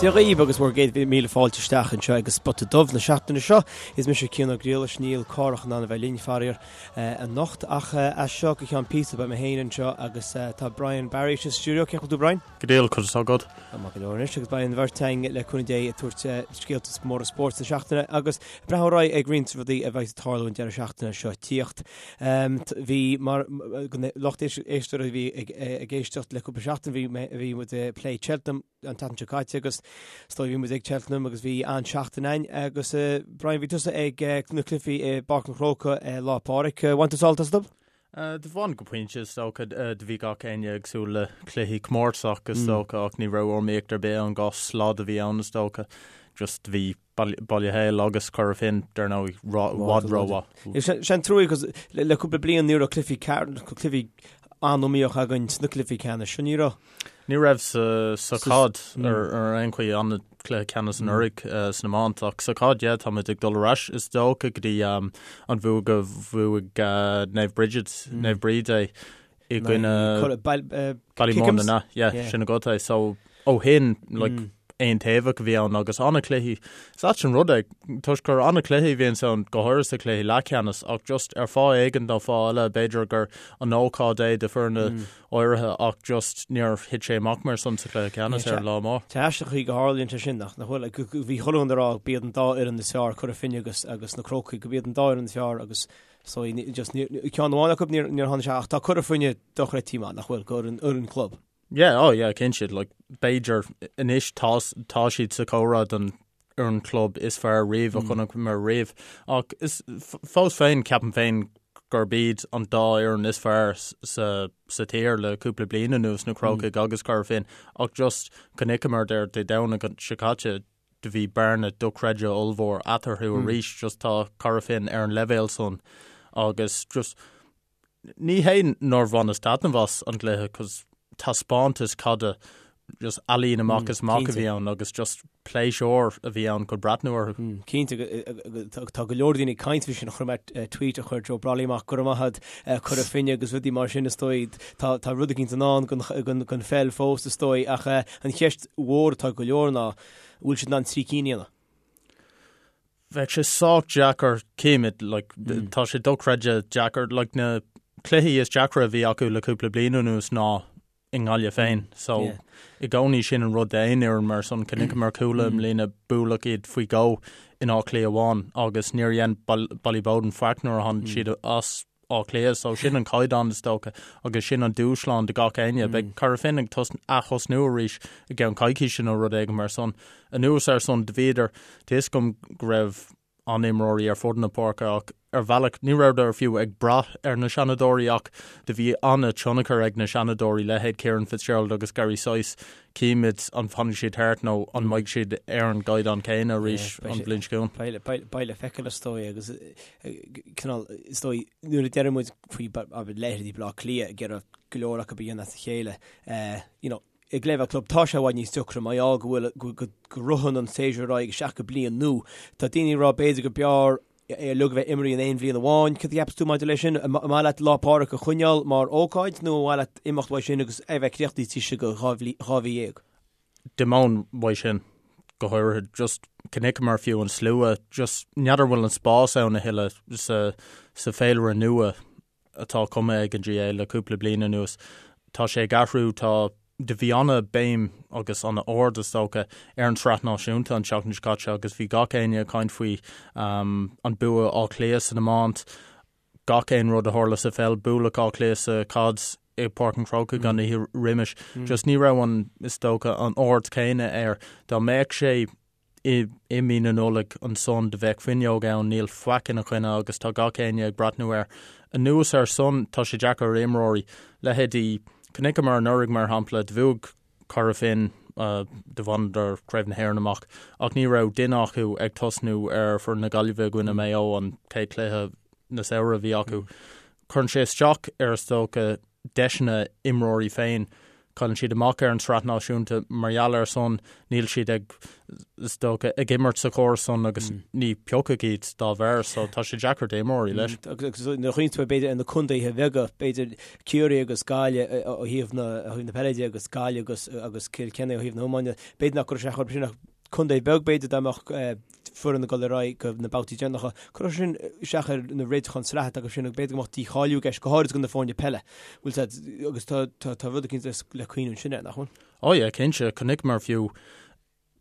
Dia dhaoibh agus bhur gcéad míle fáilte isteach anseo ag an Spota Dubh na seachtaine seo. Is mise Cian Ó Griallais, níl Cárthach in ann a bheith linn, faraor, anocht ach as seo go ceann píosa beidh mé féin anseo agus tá Brian Barry sa stiúideo. Cén chaoi a bhfuil tú Brian? Go diail, conas tá agat? Tá maith go leor anois agus beidh an bheirt againn le cúnamh Dé ag tabhairt scéalta móra spóirt na seachtaine agus ag breathnú ar aghaidh ag roinnt rudaí a bheidh ag tarlú an deireadh seachtaine seo tíocht. Bhí mar lucht éisteoirí a bhí ag éisteacht le cúpla seachtain bhí bhí muid ag plé Cheltenham an tseachtain seo caite agus is dóigh bhí muid ag Cheltenham agus bhí an-seachtain ann agus Brian bhí tusa ag na cluichí i bPáirc an Chrócaigh Lá Pádraig. Bhain tú sult astu? Do bhain go pointe is dócha. Do bhí gach éinne ag súil le cluichí comórtasach is dócha ach ní raibh iomaíocht ar bith ann, 2 slad a bhí ann is dócha. Just do bhí Baile Héil agus Cora Finne dar ndóigh i bhfad rómhaith. Sé an trua cos le cúpla bliain ní raibh cluichí cluichí an-iomaíoch againn sna cluichí ceannais seo, ní raibh? Ní raibh sa chaid ar aon chaoi an cluiche ceannais anuraidh san iomáint ach sa chaid yeah táimid ag dul ar ais is dócha go dtí an bhua go bhuaigh Naomh Bridget, Naomh Bríd é i gcoinne Ballymun an ea? Yeah sin agat é so ó shin like aontaobhach a bhí ann agus an-chluichí. Is ait an rud é toisc gur an-chluichí a bhíonns ann go háirithe sa chluiche leathcheannais ach just ar fáth éigin nó fáth eile b'fhéidir gur an ócáid é do foirne áirithe ach just níor thit sé amach mar san sa chluiche ceannais ar an lá mór. Tá aisteach an chaoi go tharlaíonn sé sin nach bhfuil? Bhí chuile dhuine ag rá go b'iad an dá fhoireann is fearr, Cora Finne agus agus na Crócaigh, go b'iad an dá fhoireann is fearr agus so just ceann amháin acu níor tháinig sé ach tá Cora Finne dochreidte maith nach bhfuil, go fhoireann club. Yeah, oh yeah, cinnte, like b'fhéidir anois tá tá siad sa chomhrá don fhoireann club is fearr riamh a chonaiceamar riamh. Ach is fós féin ceapaim féin gurb iad an dá fhoireann is fearr sa sa tír le cúpla bliain anuas, na Crócaigh agus Cora Finne. Ach just chonaiceamar ar Dé Domhnaigh seo caite do bhí bearna dochreidte ollmhór eatarthu arís, just tá Cora Finne ar an leibhéal san agus just Ní hé nár bhaineas taitneamh as an gcluiche cos taispeántas caide just ealaín amach is amach a bhí ann agus just pléisiúr a bhí ann chun breathnú orthu. Cinnte, tá go leor daoine ag caint faoi sin, chonaic mé tweet a chuir Joe Brolly amach, go raibh maith agat Cora Finne agus rudaí mar sin is dóigh. Tá tá rud eicínt i ndán don pheil fós is dóigh ach an cheist mhór atá ag go leor ná an bhfuil siad in ann trí cinn a dhéanamh? Bheadh sé sách deacair, címid, like, tá sé dochreidte deacair, like, na cluichí is deacra a bhí acu le cúpla bliain anuas ná i nGaillimh féin. So, i gcónaí sin an rud d'aon fhoireann mar san, chonaiceamar Cuala i mbliana buaileadh iad faoi dhó in Áth Cliath amháin agus níor dhein Ballyboden faic nuair a tháinig siad as Áth Cliath, so sin an caighdeán is dócha agus sin an dúshlán do gach éinne. Beidh Cora Finne ag ath-thosnú arís i gceann coicíse nó rud éigin mar san. Anuas ar san, do bhíodar, tá fhios agam go raibh an-imreoirí ar fud na páirce ach ar bhealach ní rabhadar fiú ag brath ar na seanadóirí ach do bhí an-tionchar ag na seanadóirí, leithéid Kieran Fitzgerald agus Gary Sice. Címid an bhfanfaidh siad thart nó an mbeidh siad ar an gcaighdeán céanna arís an bhliain seo chugainn. Beidh le feiceáil is dóigh agus cineál is dóigh nuair a deireann muid faoi abair leithéidí Baile Átha Cliath ag iarraidh go leor acu a dhéanamh as a chéile you know ag leibhéal club tá sé i bhfad níos deacra mar gheall go bhfuil go go ritheann an séasúr ar aghaidh isteach go bliain nua. Tá daoine ag rá b'fhéidir go b'fhearr é uilig a bheith imeartha in aon bhliain amháin. Cad a cheapas tú maidir leis sin? An maith leat Lá Pádraig a choinneáil mar ócáid nó an maith leat imeacht uaidh sin agus é bheith críochnaithe taobh istigh de 12 mhí? D'imeoinn uaidh sin, go háirithe, just chonaiceamar fiú an slua, just n'fheadar bhfuil an spás ann a thuilleadh sa sa féilire nua atá cumtha ag an GAA le cúpla bliain anuas. Tá sé ag athrú, tá, do bhí ana-bhéim agus ana-aird is dócha ar an tsraith náisiúnta an tseachtain seo caite agus bhí gach éinne ag caint faoi an bua Áth Cliath san iomáint, gach aon rud a tharla sa pheil, bualadh Áth Cliath sa chaid i bPáirc an Chrócaigh an oíche roimis. Just ní raibh an, is dócha, an aird céanna air. Dá mbeadh sé i i mí na Nollag ansan do bheadh fuinneog ann, níl faic ina choinne agus tá gach éinne ag breathnú air. Anuas ar san, tá sé deacair ar imreoirí, leithéidí, chonaiceamar anuraidh mar shampla, do bhuaigh Cora Finne, do bhaineadar Craobh na hÉireann amach ach ní raibh duine acu ag tosnú ar foireann na Gaillimhe i gcoinne Maigh Eo an chéad chluiche na samhradh a bhí acu. Cuireann sé isteach ar is dócha deiseanna imreoirí féin. Cailleann siad amach ar an tsraith náisiúnta mar gheall air san, níl siad ag, is dócha, ag imirt sa chóras san agus ní piocadh iad dá bharr, so tá sé deacair d'imreoirí leis. Agus nuair a chuimhníonn tú b'fhéidir ar na contaetha beaga, b'fhéidir Ciarraí agus Gaillimh ó thaobh na, ó thaobh na peile de agus Gaillimh agus, agus Cill Chainnigh ó thaobh na hiomána, b'fhéidir nach gcuirfeadh sé chomh sin ach contae beag b'fhéidir dá mbeadh foireann ag dul ar aghaidh go na babhtaí deireanacha. Cuirfeadh sin isteach ar na réiteacháin sraithe atá acu sin agus b'fhéidir go mbeadh dícháiliú i gceist, go háirid do na foirne peile. Bhfuil sé, agus tá, tá, tá rud eicínt le cuimhniú ansin air, nach bhfuil? Ó yeah, cinnte, chonaiceamar fiú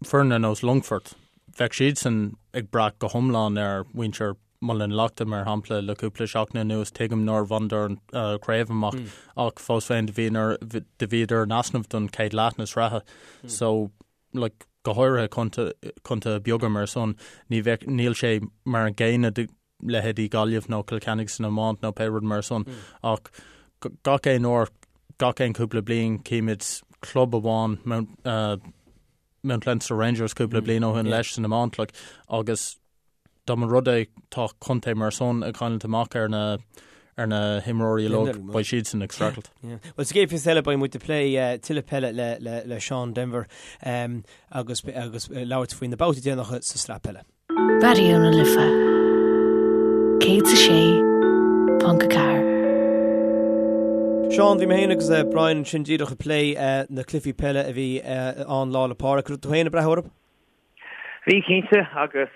foireann ar nós Longfort, bheadh siadsan ag brath go hiomlán ar mhuintir Muileann na Leachta, mar shampla, le cúpla seachtain anuas, tuigim nár bhaineadar an chraobh amach ach fós féin do bhíodar in easnamh don chéad leath na sraithe. So, like, go háirithe contaetha beaga mar san, ní bheadh, níl sé mar an gcéanna do leithéidí Gaillimh nó Cill Chainnigh san iomáint nó pé rud mar san, ach gach aon uair, gach aon cúpla bliain címid club amháin, Mount, uh, Mount Leinster Rangers cúpla bliain ó shin leis san iomáint, like, agus Dá mba rud é tá contae mar san ag cailliúint amach ar na ar na himreoirí uilig, beidh siadsan ag streachailt. Bhuel, sa gcéad phíosa eile beidh muid ag plé tuilleadh peile le le le Seán Denvir agus agus labhairt faoi na babhtaí déanacha sa sraith peile. Raidió na Life 106.4. Seán, bhí mé féin agus Brian ansin díreach ag plé na cluichí peile a bhí ann Lá 'le Pádraig. Raibh tú féin ag breathnú orthu? Bhí cinnte agus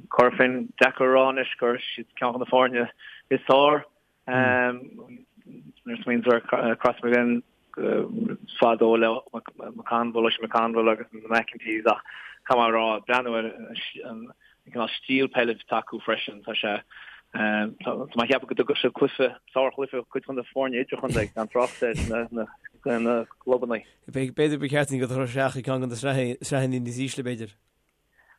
Corofin deacair a rá anois gur siad ceann de na foirne is fearr. Nuair a smaoiníonn tú ar Crossmaglen fadó le McConville, Oisín McConville agus na McEntees ach caithfidh mé a rá breathnú ar an cineál stíl peile atá acu freisin tá sé tá mé ag ceapadh go dtugfadh siad cluiche sárchluiche cuid de na foirne idirchontae gan trácht ar na clubanna. B'fhéidir ba cheart dúinn dul isteach i gceann de na sraitheanna níos ísle, b'fhéidir.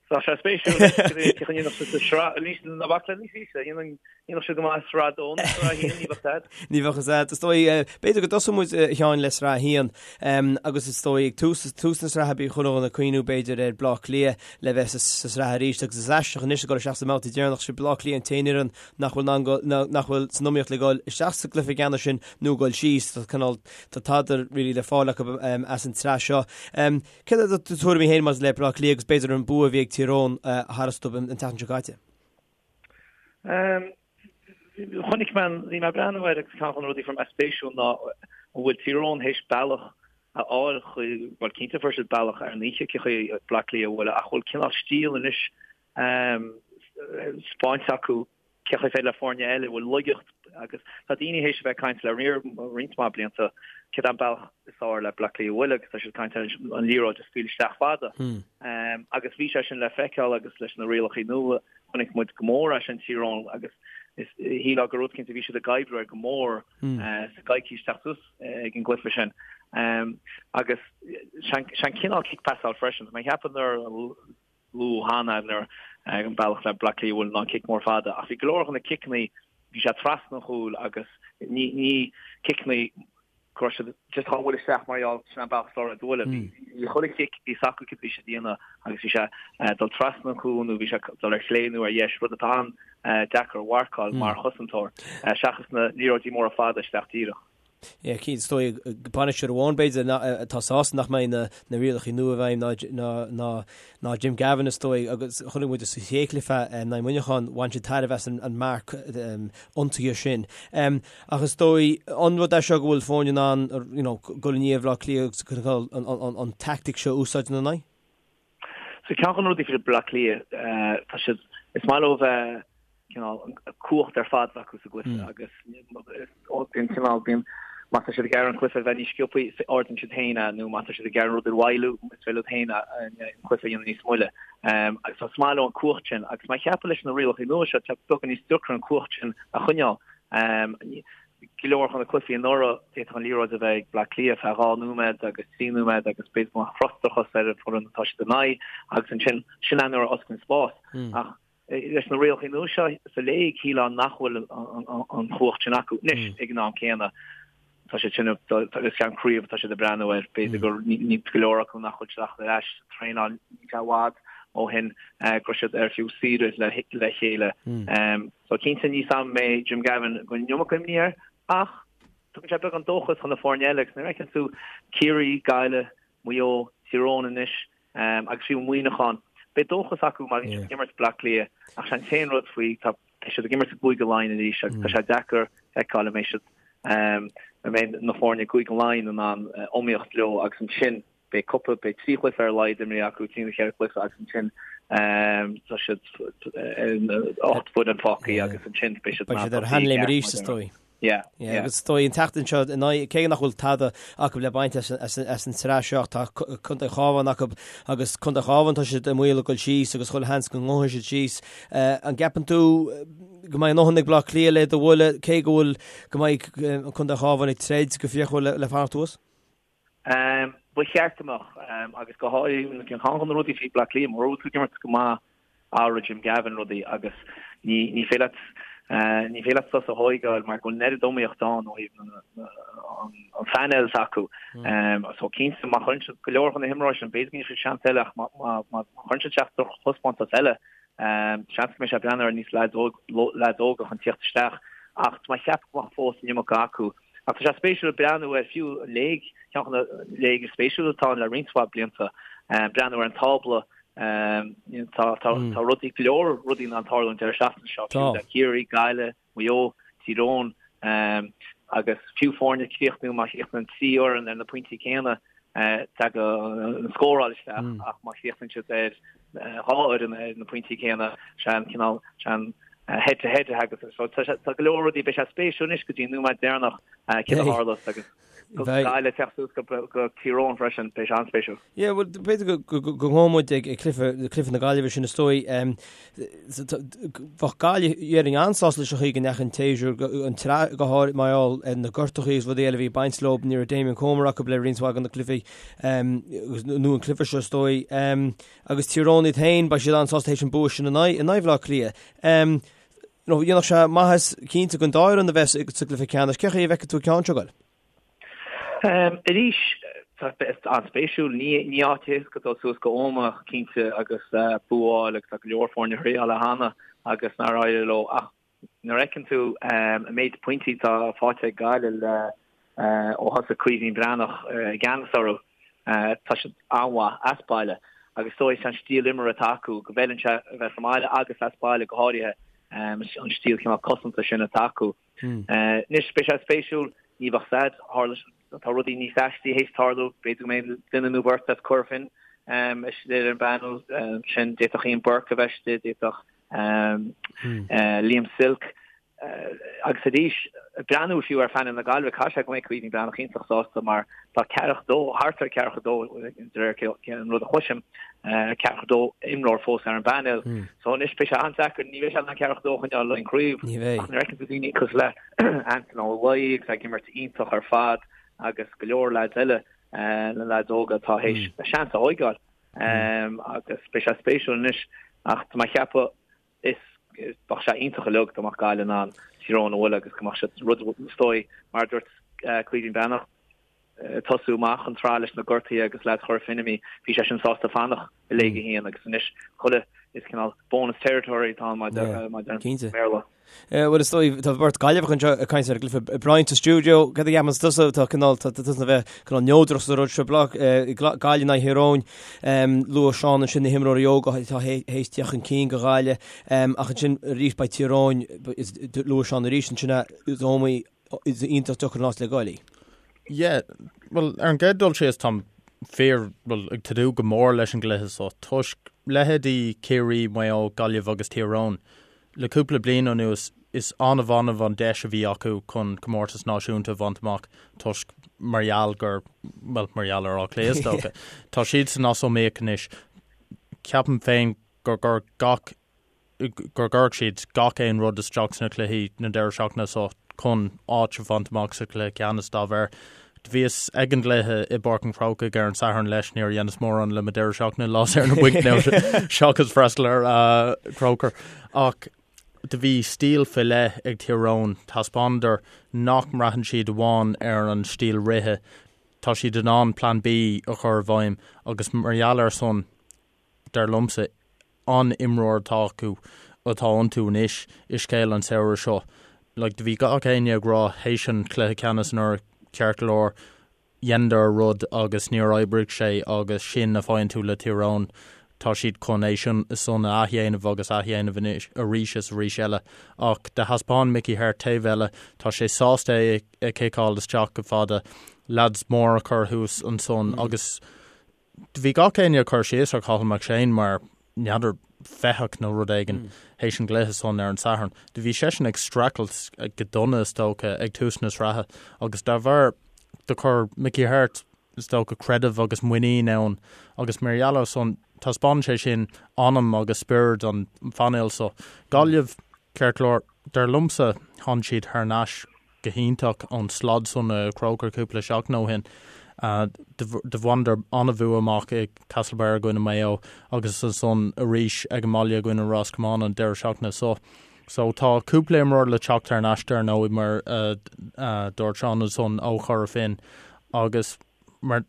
Tá sé spéisiúil cén chaoi a ndéanfadh siad sa sraith, níos ná bac le níos ísle, dhéanfadh siad go maith i sraith a dó nó sraith a haon, ní bheadh stad. Ní bheadh stad. Is dóigh, b'fhéidir go dtosóidh muid, a Sheáin, le sraith a haon agus is dóigh ag tús, tús na sraithe bhí chuile dhuine ag cuimhniú b'fhéidir ar Bleá Cliath le bheith sa sraith arís agus is aisteach anois ag dul isteach sa mbabhta deireanach, sé Bleá Cliath an t-aon fhoireann nach bhfuil in ann, nach bhfuil san iomaíocht le dhul isteach sa gcluiche ceannais sin nó dhul síos. Tá cineál, tá tada really le fáil acu as an tsraith seo. Céard iad do tuairimí féin maidir le Bleá Cliath agus b'fhéidir an bua a bhí ag Tír Eoghain tharstu an tseachtain seo caite? Chonaic mé, bhí mé ag breathnú air agus ceann de na rudaí a fuair mé spéisiúil ná an bhfuil Tír Eoghain théis bealach a fháil chuig, bhuel cinnte fuair siad bealach ar an oíche cén chaoi Bleá Cliath a bhualadh ach bhfuil cineál stíl anois spáinte acu cén chaoi féidir le foirne eile a bhfuil laigeacht agus tá daoine théis a bheith ag caint le roinnt mhaith blianta céard é an bealach is fearr le Bleá Cliath a bhualadh agus tá siad ag caint ar an liathróid a scaoileadh isteach fada. Agus bhí sé sin le feiceáil agus leis na rialacha nua chonaic muid go mór é sin Tír Eoghain agus is shílfeá gur rud cinnte bhí siad ag oibriú air go mór sa gcoicís teacht suas ag an gcluiche sin. Agus sé an cineál cic pasáil freisin. Tá mé ag ceapadh nuair luadh cheana nuair an bealach le Bleá Cliath a bhualadh ná an cic mór fada ach bhí go leor de na ciceanna bhí sé trasna an chúil agus ní ní ciceanna go raibh siad just á bhualadh isteach mar gheall sin an bealach is fearr a bhualadh. Bhí chuile chic bhí a fhios acu céard a bhí siad a dhéanamh agus bhí sé dul trasna an chúil nó bhí sé dul ar chlé nó ar dheis rud atá an-deacair a mharcáil mar chosantóir seachas na liathróidí móra fada isteach díreach. Yeah, cinnte, is dóigh bainisteoir amháin b'fhéidir atá sásta nach mbeidh na rialacha nua i bhfeidhm ná Jim Gavin is dóigh agus chonaic muid sa chéad chluiche in aghaidh Mhuineacháin bhain siad tairbhe as an marc ionsaithe sin. Ach is dóigh an rud é seo go bhfuil foirne in ann you know dul i ndiaidh Bhaile Átha Cliath agus an tactic seo a úsáid ina n-aghaidh? So ceann de na rudaí faoi Bleá Cliath, tá siad, is maith leo bheith cineál cumhacht ar fad acu sa gcluiche agus bíonn cineál, bíonn, má tá siad ag iarraidh an cluiche a bheith níos sciobthaí, ardaíonn siad féin é nó má tá siad ag iarraidh an rud a mhoilliú, is féidir leo féin an cluiche a dhéanamh níos moille. Agus is maith leo an cumhacht sin agus mé ag ceapadh leis na rialacha nua seo, tá beagán níos deacra an cumhacht sin a choinneáil. Go leor de na cluichí anuraidh, d'fhéadfadh an liathróid a bheith ag Bleá Cliath feadh 2 nóiméad agus 3 nóiméad agus b'fhéidir go mbeadh frustrachas ar an bhfoireann atá siad in aghaidh agus ansin, sin é nuair a osclaíonn spás. Ach leis na rialacha nua seo sa léig, shílfeá nach bhfuil an chumhacht sin acu. Anois, ag an am céanna, tá siad sin, is ceann craobh atá siad ag breathnú air, b'fhéidir gur ní go leor acu nach bhfuil siad ach ar ais sa traenáil, níl sé i bhfad ó shin go raibh siad ar fiú saoire le chéile. So cinnte ní sam mé Jim Gavin go bhfuil an iomarca imní air ach. Tugann sé beagán dóchas chun na foirne eile agus nuair a fheiceann tú Ciarraí, Gaillimh, Maigh Eo, Tír Eoghain anois agus fiú Muineachán, beidh dóchas acu má bhíonn siad ag imirt Bleá Cliath ach sé an t-aon rud faoi tá siad ag imirt i gCúige Laighean arís agus tá sé deacair feiceáil an mbeidh siad an mbeidh na foirne i gCúige Laighean in ann iomaíocht leo agus ansin beidh cúpla, beidh 3 chluiche ar a laghad imrithe acu, 3 nó 4 chluiche agus ansin tá siad 8 bhfoireann fágtha agus ansin beidh siad Beidh siad ar a sheanléim arís is dóigh. Yeah, yeah. Agus is dóigh an tseachtain seo in aghaidh, cé nach bhfuil tada acu le baint as an tsraith seo, tá Contae Chábháin acu agus Contae Chábháin tá siad i mbaol a dhul síos agus chuile sheans go ngabhfaidh siad síos. An gceapann tú go mbeidh a ndóthain ag Bleá Cliath le iad a bhualadh, cé go bhfuil go mbeidh Contae Chábháin ag troid go fíochmhar le fanacht thuas? Ba cheart go mbeadh, agus go háirithe ceann de na rudaí faoi Bleá Cliath, mura bhfuil tú ag imirt go maith athróidh Jim Gavin rudaí agus ní ní féidir leat ní féidir leat sos a thóigeáil mar go bhfuil an oiread iomaíocht ann ó thaobh an phainéil s'acu. So cinnte má chuireann siad go leor de na himreoirí sin, b'fhéidir go ndéanfaidh siad seans eile ach má chuireann siad isteach drochthaispeántas eile, seans go mbeidh sé ag breathnú ar níos leaids óga chun tíocht isteach ach tá mé ag ceapadh go mbeadh fós an iomarca acu. Ach tá sé spéisiúil breathnú ar fiú an léig, ceann de na léig is spéisiúla atá ann le roinnt mhaith blianta, breathnú ar an tábla, tá tá rudaí, go leor rudaí in ann tarlú an deireadh seachtaine seo, fiú le Ciarraí, Gaillimh, Maigh Eo, Tír Eoghain, agus fiú foirne críochnú, má chríochnaíonn 3 fhoireann ar na pointí céanna, tagann an scóráil isteach ach má chríochnaíonn siad ar 2 fhoireann ar na pointí céanna, sé an cineál, sé an head to head a thagas. So tá tá go leor rudaí, beidh sé spéisiúil anois go dtí an nóiméad deireanach céard a tharlós agus Gaillimh ag teacht suas go go Tír Eoghain freisin, beidh sé an-spéisiúil. Yeah, well b'fhéidir go go go go ngabhfaidh muid ag ag cluiche cluiche na Gaillimhe sin is dóigh. Bheadh Gaillimh déarfainn an-sásta leis an chaoi go ndeachaigh an tséasúr an tsraith go háirithe mar gheall ar na gortuithe agus rudaí eile a bhí ag baint leo ní raibh Damien Comer acu le roinnt mhaith de na cluichí agus nó an cluiche seo is dóigh. Agus Tír Eoghain iad féin, beidh siad an-sásta théis an bua sin in aghaidh in aghaidh Bhaile Átha Cliath. You know, dhéanfadh sé maitheas cinnte don dá fhoireann a bheith sa gcluiche ceannais. Cén chaoi a bhfeiceann tú an ceann seo ag goil? Arís, tá an-spéisiúil. Ní ní áit éasca dul suas go Ómaigh cinnte agus bua a fháil agus tá go leor foirne a thriáil é cheana agus nár éirigh leo ach Nuair a fheiceann tú an méid pointí atá faighte ag Gaillimh le ó thosaigh Caoimhín Breathnach i gceannas orthu, tá siad an-mhaith as baile agus is dóigh an stíl imeartha atá acu go bhfeileann sé a bheith sa mbaile agus as baile go háirithe, an stíl cineál cosanta sin atá acu. Anois beidh sé spéisiúil, ní bheadh said, tharla, tá rudaí níos aistí théis tarlú, b'fhéidir go mbeidh duine nó beirt as Cora Finne istigh ar an bpainéal sin, d'fhéadfadh Ian Burke a bheith istigh, d'fhéadfadh Liam Silke, agus arís, breathnú fiú ar phainéal na Gaillimhe, caithfidh sé go mbeidh Caoimhín Breathnach iontach sásta mar tá ceathracha dó, thart ar ceathracha dó, de réir an rud a chloisim, ceathracha dó imreoir fós ar an bpainéal. So anois beidh sé an-deacair, ní bheidh sé in ann ceathracha dó a choinneáil le craobh, ach nuair a fheiceann tú daoine cosúil le Antaine Ó Laoi agus ag imirt iontach ar fad agus go leor leaids eile, na leaids óga atá théis a seans a thóigeáil. Agus beidh sé spéisiúil anois ach tá mé ag ceapadh is bheadh sé iontach uilig dá mbeadh Gaillimh in ann Tír Eoghain a bhualadh agus go mbeadh siad rud is dóigh mar a dúirt Caoimhín Breathnach tosú amach an tsraith leis na gortuithe agus leaids Chora Finne imithe bhí sé sin sásta fanacht i Léig 1 agus anois chuile is cineál bonus territory atá ann mar a deir an Béarla. Bhuel is dóigh tá beirt Gaillimheach anseo ag caint ar an gcluiche. Brian sa stiúideo, cad a cheapann tusa tá cineál tá tusa a bheith cineál neodrach sa rud seo Gaillimh in aghaidh Thír Eoghain. Luaigh Seán ansin na himreoirí óga atá théis teacht chun cinn do Ghaillimh ach ansin arís beidh Tír Eoghain luaigh Seán arís ansin is iomaí is iontach deacair an áit le goil í. Yeah, well ar an gcéad dul síos táim fíor well ag tnúth go mór leis an gcluiche seo toisc leithéidí Ciarraí, Maigh Eo, Gaillimh agus Tír Eoghain Le cúpla bliain anuas, is annamh annamh an deis a bhí acu chun comórtas náisiúnta a bhaint amach toisc mar gheall gur, bhuel, mar gheall ar Áth Cliath is dócha. Tá siadsan as iomaíocht anois. Ceapaim féin gur gur gach, gur gcuirfidh siad gach aon rud isteach sna cluichí na deireadh seachtaine seo chun áit a bhaint amach sa chluiche ceannais dá bharr. Do bhíos ag an gcluiche i bPáirc an Chrócaigh ar an Satharn leis, níor dheineas mórán le mo deireadh seachtaine lá saor na bainc nó seachas freastal ar Croker. Ach do bhí stíl fé leith ag Tír Eoghain, taispeánadar nach mbraitheann siad amháin ar an stíl rithe, tá siad in ann Plan B a chur i bhfeidhm agus mar gheall ar san, dar liomsa, an imreoir atá acu, atá iontu anois i scéal an samhradh seo. Like, do bhí gach éinne ag rá théis an chluiche ceannais anuraidh, ceart go leor, dheineadar rud agus níor oibrigh sé agus sin a faigheann tú le Tír Eoghain. Tá siad chun é sin san a athdhéanamh agus athdhéanamh anois arís is arís eile. Ach do thaispeáin Mickey Harte taobh eile, tá sé sásta é a chiceáil isteach go fada, leaids mór a chur thuas ansan agus bhí gach éinne ag cur síos ar Cathal McShane mar n'fheadar fathach nó rud éigin théis an gcluiche san ar an Satharn. Do bhí seisean ag streachailt go dona is dócha ag tús na sraithe agus dá bharr do chuir Mickey Harte is dócha creideamh agus muinín ann agus mar gheall air san taispeánann sé sin anam agus spiorad an phainéil so. Gaillimh, ceart go leor, dar liomsa tháinig siad thar n-ais go hiontach ón slad san i Croker cúpla seachtain ó shin. Do bhaineadar an-bhua amach i Castlebar i gcoinne Maigh Eo agus ansan arís ag an mbaile i gcoinne Ros Comáin an deireadh seachtaine so. So tá cúpla imreoir le teacht thar n-ais dar ndóigh mar a dúirt Seán ansan ó Chora Finne agus mar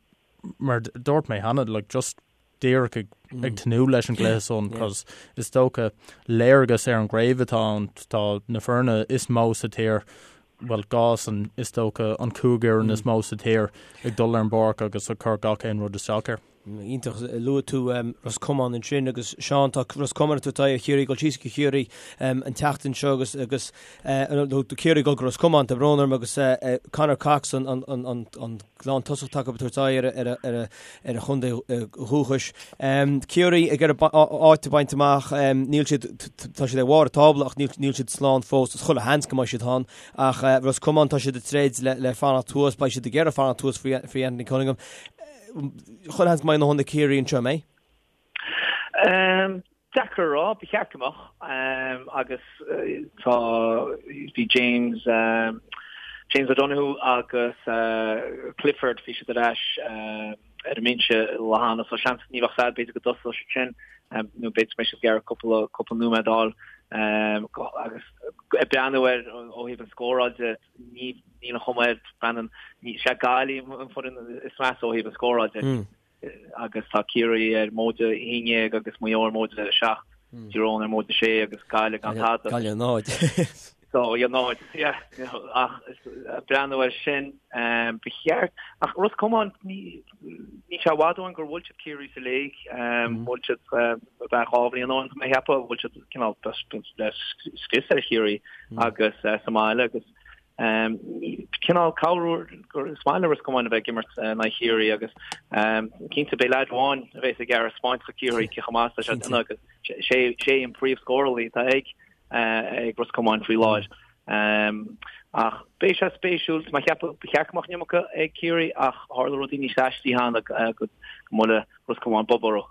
mar dúirt mé cheana like just díreach ag ag tnúth leis an gcluiche san cos is dócha léargas ar an gcraobh atá ann tá na foirne is mó sa tír bhuel dhá san is dócha an chúig fhoireann is mó sa tír ag dul ar an bpáirc agus ag cur gach aon rud isteach air. Iontach, luaigh tú Ros Comáin ansin agus Seán tá Ros Comáin ag tabhairt aghaidh ar Chiarraí ag dul síos go Ciarraí an tseachtain seo agus agus nó Ciarraí ag dul go Ros Comáin tá brón orm agus Conor Cox an an an an an lántosach atá acu ag tabhairt aghaidh ar ar ar ar a chontae dhúchais. Ciarraí ag iarraidh áit a bhaint amach, níl siad, tá siad ar bharr an tábla ach níl siad slán fós, is chuile sheans go mbeidh siad ann. Ach Ros Comáin, tá siad ag troid le fanacht thuas, beidh siad ag iarraidh fanacht thuas faoi Anthony Cunningham. Chuile sheans go mbeidh a ndóthain ag Ciarraí anseo, an mbeidh? Deacair a rá, ba cheart go mbeadh agus tá, bhí James, James O'Donoghue agus Clifford, bhí siad ar ais ar an mbinse lá cheana so seans ní bheadh fadhb, b'fhéidir go dtosódh siad sin nó b'fhéidir go mbeidh siad ag iarraidh cúpla, cúpla nóiméad a fháil agus ag breathnú air ó thaobh an scóráil de, ní, níl an chuma air, Brendan, ní, sé Gaillimh an foireann is measa ó thaobh an scóráil de. agus tá Ciarraí ar móide 11 agus Maigh Eo ar móide 7, Tír Eoghain ar móide 6 agus Gaillimh gan tada. Gaillimh 0. So, yeah, 0, yeah, ach breathnú air sin, ba cheart, ach Ros Comáin, ní sé i bhfad ó shin gur bhuail siad Ciarraí sa léig, bhuail siad b'fhéidir dhá bhliain ó shin, tá mé ag ceapadh, bhuail siad cineál le scrios ar Chiarraí agus sa mbaile agus Cineál cabhrú gur is maith le Ros Comáin a bheith ag imirt in aghaidh Chiarraí agus cinnte beidh leaid amháin a bheas ag iarraidh spáint do Chiarraí cé chomh maith is atá sé agus sé sé an príomhscórálaí atá ag ag Ros Comáin faoi láthair. Ach beidh sé spéisiúil, tá mé ag ceapadh ba cheart go mbeadh an iomarca ag Ciarraí ach tharla rudaí níos aistí cheana go mbuailfeadh Ros Comáin bob orthu.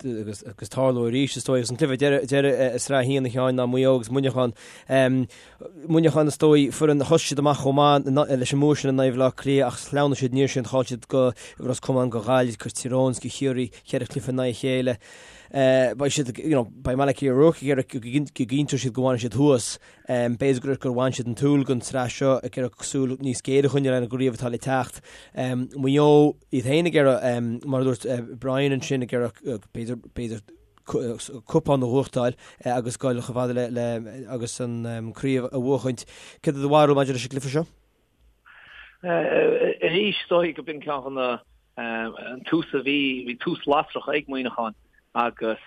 Agus agus tarlóidh arís is dóigh agus an cluiche deireadh deireadh i Sraith 1 a Sheáin ná Maigh Eo agus Muineachán. Muineachán is dóigh foireann a thosaigh siad amach chomh maith leis an mbua sin in aghaidh Bhaile Átha Cliath ach shleamhnaigh siad aniar sin chaill siad go Ros Comáin go Gaillimh go Tír Eoghain go Chiarraí cheithre chluiche in aghaidh a chéile. Beidh siad you know beidh Malachy O'Rourke ag iarraidh go gcinnteoidh siad go bhfanfaidh siad thuas. B'fhéidir gur gur bhain siad an tsúil den tsraith seo ag iarraidh súil níos géire a choinneáil ar an gcraobh atá le teacht. Maigh Eo iad féin ag iarraidh, mar a dúirt Brian ansin, ag iarraidh b'fhéidir b'fhéidir cupán a bhuachtáil agus dul chomh fada le le agus an craobh a bhuachaint. Céard é do bharúil maidir leis an gcluiche seo? Arís, is dóigh go b'in ceann de na an tús a bhí, bhí tús lasrach ag Muineachán agus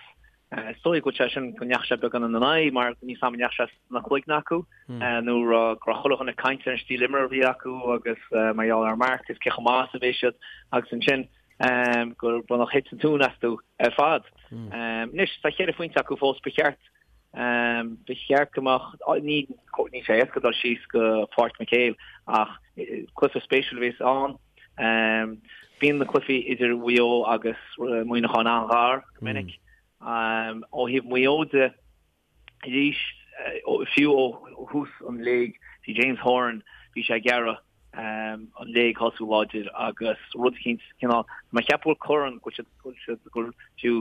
Is dóigh go bhfuil sé sin, go ndeachaigh sé beagán ina n-aghaidh mar níl a fhios agam an ndeachaigh sé sna cloigne acu nó go raibh chuile dhuine ag caint ar an stíl imeartha a bhí acu agus mar gheall ar Mark is cé chomh maith is a bhí siad agus ansin gur baineadh thit an tóin astu ar fad. Anois tá cheithre phointe acu fós ba cheart ba cheart go mbeadh ní níl sé éasca dul síos go Páirc McHale ach cluiche spéisiúil a bheas ann. Bíonn na cluichí idir Mhaigh Eo agus Muineachán an-ghar go minic. Ó thaobh Mhaigh Eo de, arís, fiú ó thús an léig, bhí James Horan, bhí sé ag iarraidh an léig a thosú láidir agus rud eicínt, cineál, tá mé ag ceapadh go bhfuil corn, go bhfuil siad, go bhfuil siad, go bhfuil fiú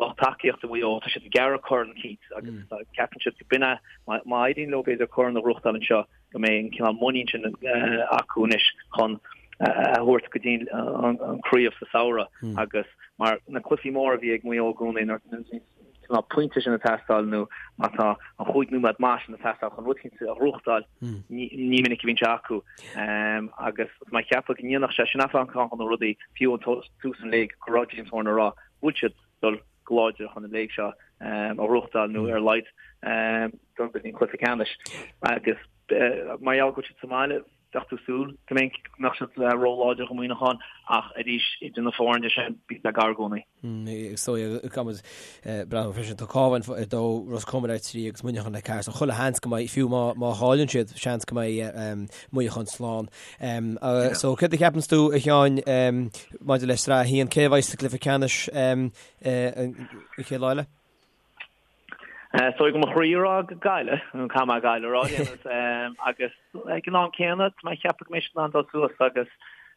lucht tacaíochta Mhaigh Eo, tá siad ag iarraidh corn eicínt agus ceapann siad go b'in é, má éiríonn leo b'fhéidir corn a ghnóthachtáil anseo, go mbeidh an cineál muinín sin acu anois chun a thabhairt go dtí an craobh sa samhradh agus mar na cluichí móra a bhí ag Maigh Eo i gcónaí nuair. cineál pointe sin ag teastáil nó má tá an chúig nóiméad maith sin ag teastáil chun rud éicint a ghnóthachtáil, ní minic a bhíonn sé acu. Agus tá mé ag ceapadh go ndéanfadh sé sin ceann de na rudaí, fiú ó tús an léig, go raibh James Horan ag rá go bhfuil siad dul go láidir chun an léig seo a ghnóthachtáil nó ar a laghad dul go dtí an cluiche ceannais. Agus mar gheall go bhfuil siad sa mbaile, Bheadh tú súil go mbeadh siad ró-láidir do Mhuineachán ach arís idir na foirne sin bíonn sé gar i gcónaí. Is dóigh caithfimid breathnú freisin tá Cabhán ar 2, Ros Comáin ar 3 agus Muineachán ar 4 so chuile sheans go mbeidh fiú má chailleann siad seans go mbeidh Muineachán slán. So céard a cheapanns tú a Sheáin maidir le Sraith 1 cé a bheidh sa gcluiche ceannais an chéad lá eile? Is dóigh go mo chroí a rá Gaillimh, nó caithfidh mé Gaillimh a rá, agus ag an am céanna, tá mé ag ceapadh go mbeidh siad in ann dul suas agus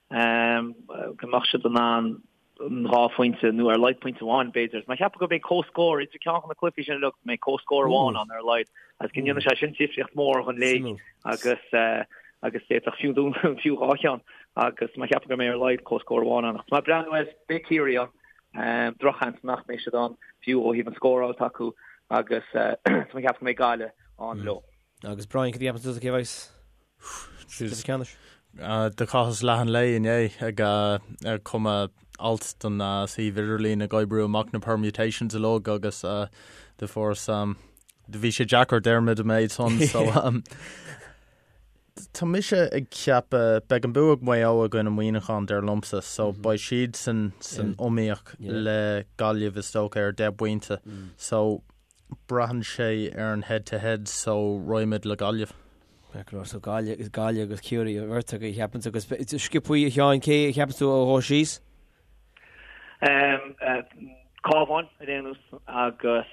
go mbeadh siad in ann an dhá phointe, nó ar a laghad pointe amháin, b'fhéidir. Tá mé ag ceapadh go mbeidh comhscór idir ceann de na cluichí sin uilig, go mbeidh comhscór amháin ann ar a laghad, agus go ndéanfaidh sé sin difríocht mhór don léig agus agus d'fhéadfadh fiú fiú dhá cheann agus tá mé ag ceapadh go mbeidh ar a laghad comhscór amháin ann. Ach tá mé ag breathnú air, beidh Ciarraí ann. Drochsheans nach mbeidh siad ann, fiú ó thaobh an scóráil atá acu agus tá mé ag ceapadh go mbeidh Gaillimh ann leo. Agus Brian, cad a cheapann tusa cé a bheas sa gcluiche ceannais? Do chaitheas leath an lae inné ag cumadh alt don suíomh idirlín ag oibriú amach na permutations uilig agus do fuaireas do bhí sé deacair Diarmuid an méid san so Tá mise ag ceapadh, beidh an bua ag Maigh Eo i gcoinne Muineachán dar liomsa, so beidh siadsan san iomaíocht le Gaillimh is dócha ar 10 bpointe. So braitheann sé ar an head to head so raghaimid le Gaillimh. So Gaillimh, Gaillimh agus Ciarraí an bheirt agaibh a cheapanns agus sciobthaí a Sheáin cé a cheapanns tú a ghabhfaidh síos? Cabhán ar aon nós agus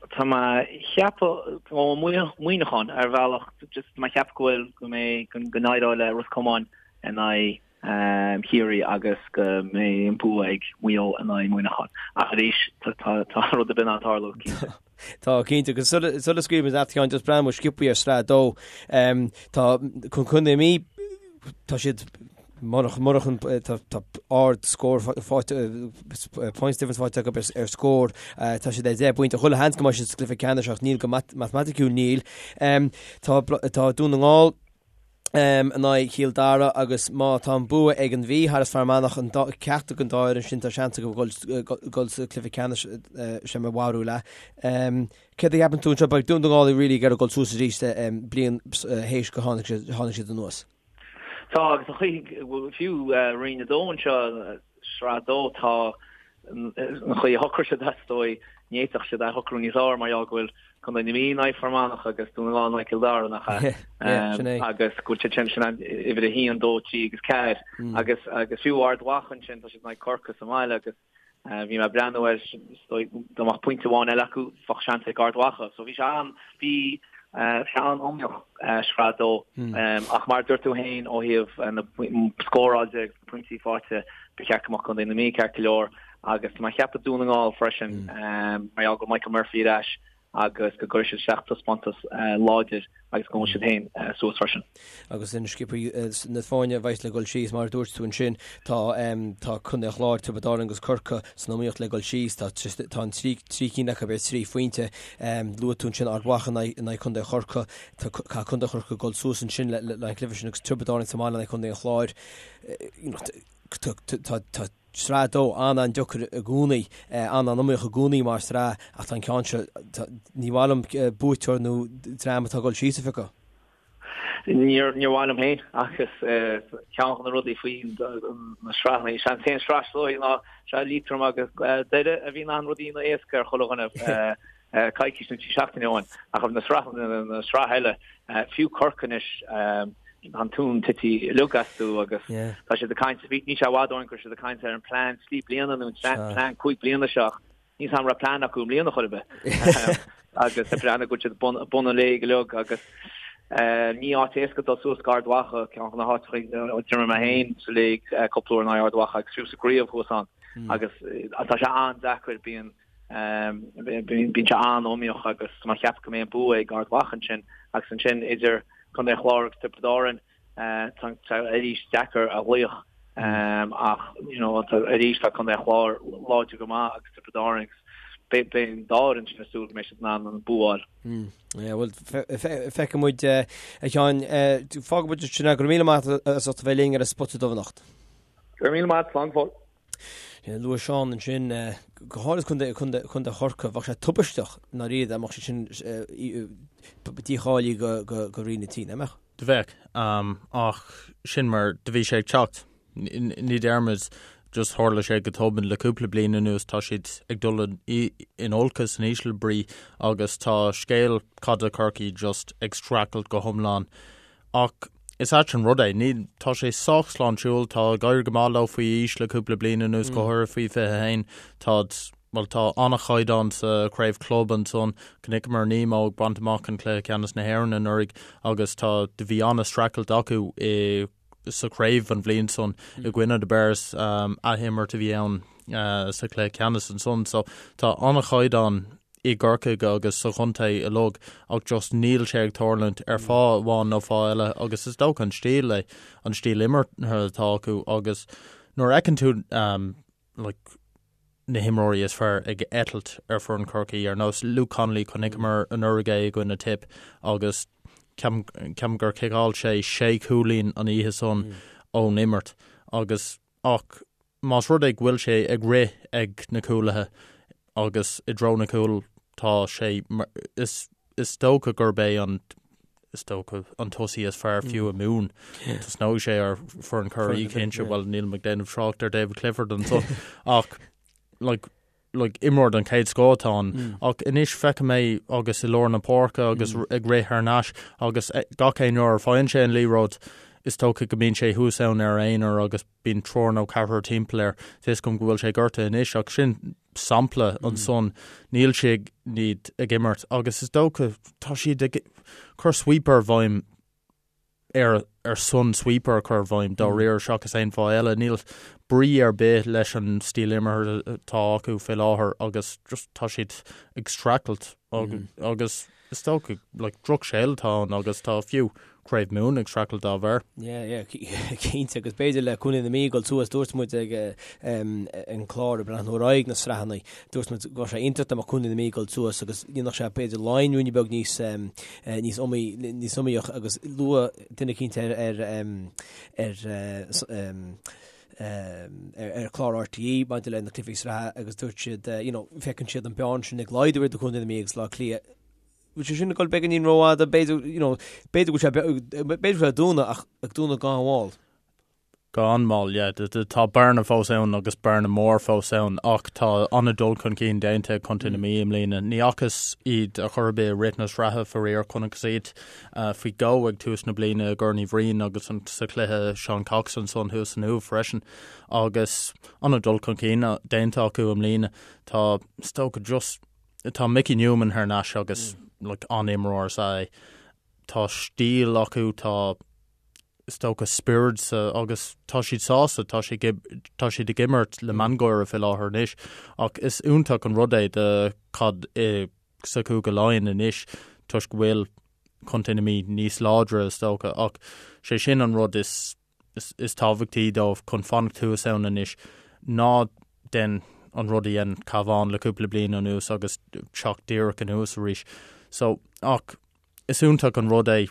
tá mé ag ceapadh ó Muineachán ar bhealach just tá mé ag ceapadh go bhfuil go mbeidh go n-éireoidh le Ros Comáin in aghaidh Chiarraí agus go mbeidh an bua ag Maigh Eo in aghaidh Muineachán. Ach arís tá tá rud ar bith in ann tarlú cinnte. Tá cinnte agus sula scaoilfimid leat a Sheáin just breathnú sciobthaí ar Sraith 2 tá Contae na Mí tá siad murach murach an tá tá ard scór faighte points difference faighte acu ar ar scór tá siad ar 10 bpointe chuile sheans go mbeidh siad sa gcluiche ceannais ach níl go matamaiticiúil níl. Tá tá Dún na nGall in aghaidh Chill Dara agus má tá an bua ag an Mhí thar Fear Manach an ceachtar den dá fhoireann sin tá seans acu dul sa cluiche ceannais sé mo bharúil é. Céard a cheapann tú anseo? Beidh Dún na nGall really ag iarraidh dul suas arís bliain théis go tháinig siad anuas. Tá agus an chaoi fiú Roinn 2 anseo, Sraith 2, tá an chaoi a shocraigh siad is dóigh, ní fhéadfadh siad é a shocrú níos fearr mar gheall go bhfuil Contae na Mí in aghaidh Fear Manach agus Dún na nGall in aghaidh Cill Dara, nach ea? Sin é. Agus go bhfuil siad sin, sin an uimhir 1, 2, 3 agus 4 agus agus fiú Ard Mhacha ansin, tá siad in aghaidh Corcaigh sa mbaile agus bhí mé ag breathnú air, is dóigh dá mbeadh pointe amháin eile acu, bheadh seans ag Ard Mhacha. So bhí sé an, bhí sé an-iomaíoch Sraith 2 ach mar a dúirt tú féin ó thaobh na scóráil de agus na pointí faighte, ba cheart go mbeadh Contae na Mí ceart go leor agus tá mé ag ceapadh Dún na nGall freisin mar gheall go bhfuil Michael Murphy ar ais agus go gcuirfidh siad isteach taispeántas láidir agus go ngabhfaidh siad féin suas freisin. Agus an sciobthaí na foirne a bheas le dul síos, mar a dúirt tú ansin, tá tá Contae an Chláir, Tiobraid Árann agus Corcaigh san iomaíocht le dul síos. Tá tá an trí trí cinn acu ar thrí phointe. Luaigh tú ansin Ard Mhacha in aghaidh Contae Chorcaí. Tá Contae Chorcaí ag dul suas ansin le le an cluiche sin agus Tiobraid Árann sa mbaile in aghaidh Contae an Chláir. Tá Sraith 2 an-an-deacair i gcónaí, an-an-iomaíoch i gcónaí mar shraith ach tá an ceann seo, ní mhaith liom buaiteoir nó dream atá ag dul síos a phiocadh. Níor mhaith liom féin agus ceann de na rudaí faoi na sraitheanna, is é an t-aon sraith is dóigh ná sraith Liatroim agus Doire a bhí in ann rudaí a dhéanamh éasca ar chuile dhuine coicís nó trí seachtaine ó shin ach na sraitheanna na sraith eile fiú Corcaigh anois tá an tóin tite uilig astu agus tá siad ag caint, níl sé i bhfad ó shin go raibh siad ag caint ar an plean trí bliana nó an plean cúig bliana seo ach níl a fhios agam an raibh plean acu i mbliana chor ar bith agus ag breathnú go bhfuil siad bun an léig uilig agus ní áit éasca dul suas go Ard Mhacha, ceann de na háiteacha a d'imir mé féin sa léig cúpla uair in aghaidh Ard Mhacha agus fiú sa gcraobh thuas ann agus tá sé an-deacair bíonn Bíonn sé an-iomaíoch agus tá mé ag ceapadh go mbeidh an bua ag Ard Mhacha ansin agus ansin idir Contae an Chláir agus Tiobraid Árann tá sé arís deacair a ghlaoch ach you know arís tá Contae an Chláir láidir go maith agus Tiobraid Árann agus. Beidh an dá fhoireann sin ag súil go mbeidh siad in ann an bua a fháil. Yeah, bhuel, feicfidh muid, a Sheáin. Fágfaidh muid sin é. Go raibh míle maith agat as ucht a bheith linn ar an Spota Dubh anocht. Go raibh míle maith, slán go fóill. Luaigh Seán ansin, go háirithe contae, contae, contae Chorcaí, bheadh sé tubaisteach i ndáiríre dá mbeadh siad sin dícháilithe go, go, go Roinn 3, nach mbeadh? Do bheadh, ach sin mar do bhí sé ag teacht. Ní déarfaimid just tharla sé go tobann le cúpla bliain anuas, tá siad ag dul in olcas, in ísle brí agus tá scéal caide Chorcaí just ag streachailt go hiomlán. Ach is ait an rud é, ní, tá sé sách sláintiúil, tá ag éirí go maith leo faoi aois le cúpla bliain anuas, go háirithe faoi 21, táid, bhuel tá an-chaighdeán sa chraobh club ansan, chonaiceamar Nemo ag baint amach an cluiche ceannais na hÉireann anuraidh agus tá, do bhí an-streachailt acu i sa chraobh an bhliain san i gcoinne the Bears, athimirt a bhí ann sa chluiche ceannais ansan. So tá an-chaighdeán i gCorcaigh agus sa chontae uilig ach just níl sé ag tarlúint ar fáth amháin nó fáth eile agus is dócha an stíl é, an stíl imeartha atá acu agus nuair a fheiceann tú like na himreoirí is fearr ag eitilt ar foireann Chorcaí, ar nós Luke Connolly, chonaiceamar anuraidh é i gcoinne Tipp agus ceapaim gur chiceáil sé sé chúilín an oíche san ón imirt agus ach más rud é go bhfuil sé ag rith ag na cúlaithe agus i dtreo na gcúl tá sé is is dócha gurb é an is dócha an tosaí is fearr fiú i Mumhan. Tosnóidh sé ar foireann Chiarraí cinnte, bhuel nílim ag déanamh trácht ar David Clifford ansan ach like, like, imreoir den chéad scoth atá ann mm. ach anois feicim é agus i lár na páirce agus mm. ag rith thar n-ais agus eh, gach aon uair a faigheann sé an liathróid is dócha go mbíonn sé thuas ann ar aonar agus bíonn triúr nó ceathrar timpeall air. Tá fhios agam go bhfuil sé gortaithe anois ach sin sampla ansan. Níl siad ag imirt agus is dócha tá siad ag cur sweeper i bhfeidhm ar ar son sweeper a chur i bhfeidhm dáiríre seachas aon fáth eile. Níl brí ar bith leis an stíl imeartha atá acu fé láthair agus just tá siad ag streachailt agus Is dócha, like, drochscéal atá ann agus tá fiú Craobh Mumhan ag streachailt dá bharr. Yeah, yeah, cinnte, agus b'fhéidir le Contae na Mí ag dul suas, dúirt muid ag an clár ag breathnú ar aghaidh na sraitheanna, dúirt muid go raibh sé iontach dá mbeadh Contae na Mí ag dul suas agus dhéanfadh sé b'fhéidir Laighin ruainne beag níos níos iomaí níos iomaíoch agus luadh duine eicínt ar ar ar ar chlár RTÉ maidir le na cluichí sraithe agus dúirt siad, you know, feiceann siad an bearna sin ag laghdú idir Contae na Mí agus Bleá Cliath. Bhfuil sé sin ag dul beagáinín rófhada, b'fhéidir, you know, b'fhéidir go bhfuil sé, b'fhéidir go bhfuil sé ag dúnadh ach ag dúnadh go han-mhall. Go han-mhall, yeah. Tá bearna fós ann agus bearna mór fós ann ach tá an-dul chun cinn déanta ag Contae na Mí i mbliana. Ní fhacthas iad ar chor ar bith i rith na sraithe faraor, chonacthas iad faoi dhó ag tús na bliana i gCorn Uí Bhriain agus sa chluiche Seán Cox ansan thuas san Uaimh freisin agus an-dul chun cinn déanta acu i mbliana. Tá, is dócha just, tá Mickey Newman thar n-ais agus like, an-imreoir is ea é. Tá stíl acu, tá is dócha spiorad sa agus tá siad sásta, tá siad tá siad ag imirt le miongháire fé láthair anois ach is iontach an rud é do caid i sa Chúige Laighean anois toisc go bhfuil Contae na Mí níos láidre is dócha ach sé sin an rud is is tábhachtaí dóibh chun fanacht thuas ann anois ná déan an rud a dhein Cabhán le cúpla bliain anuas agus teacht díreach anuas arís. So ach is iontach an rud é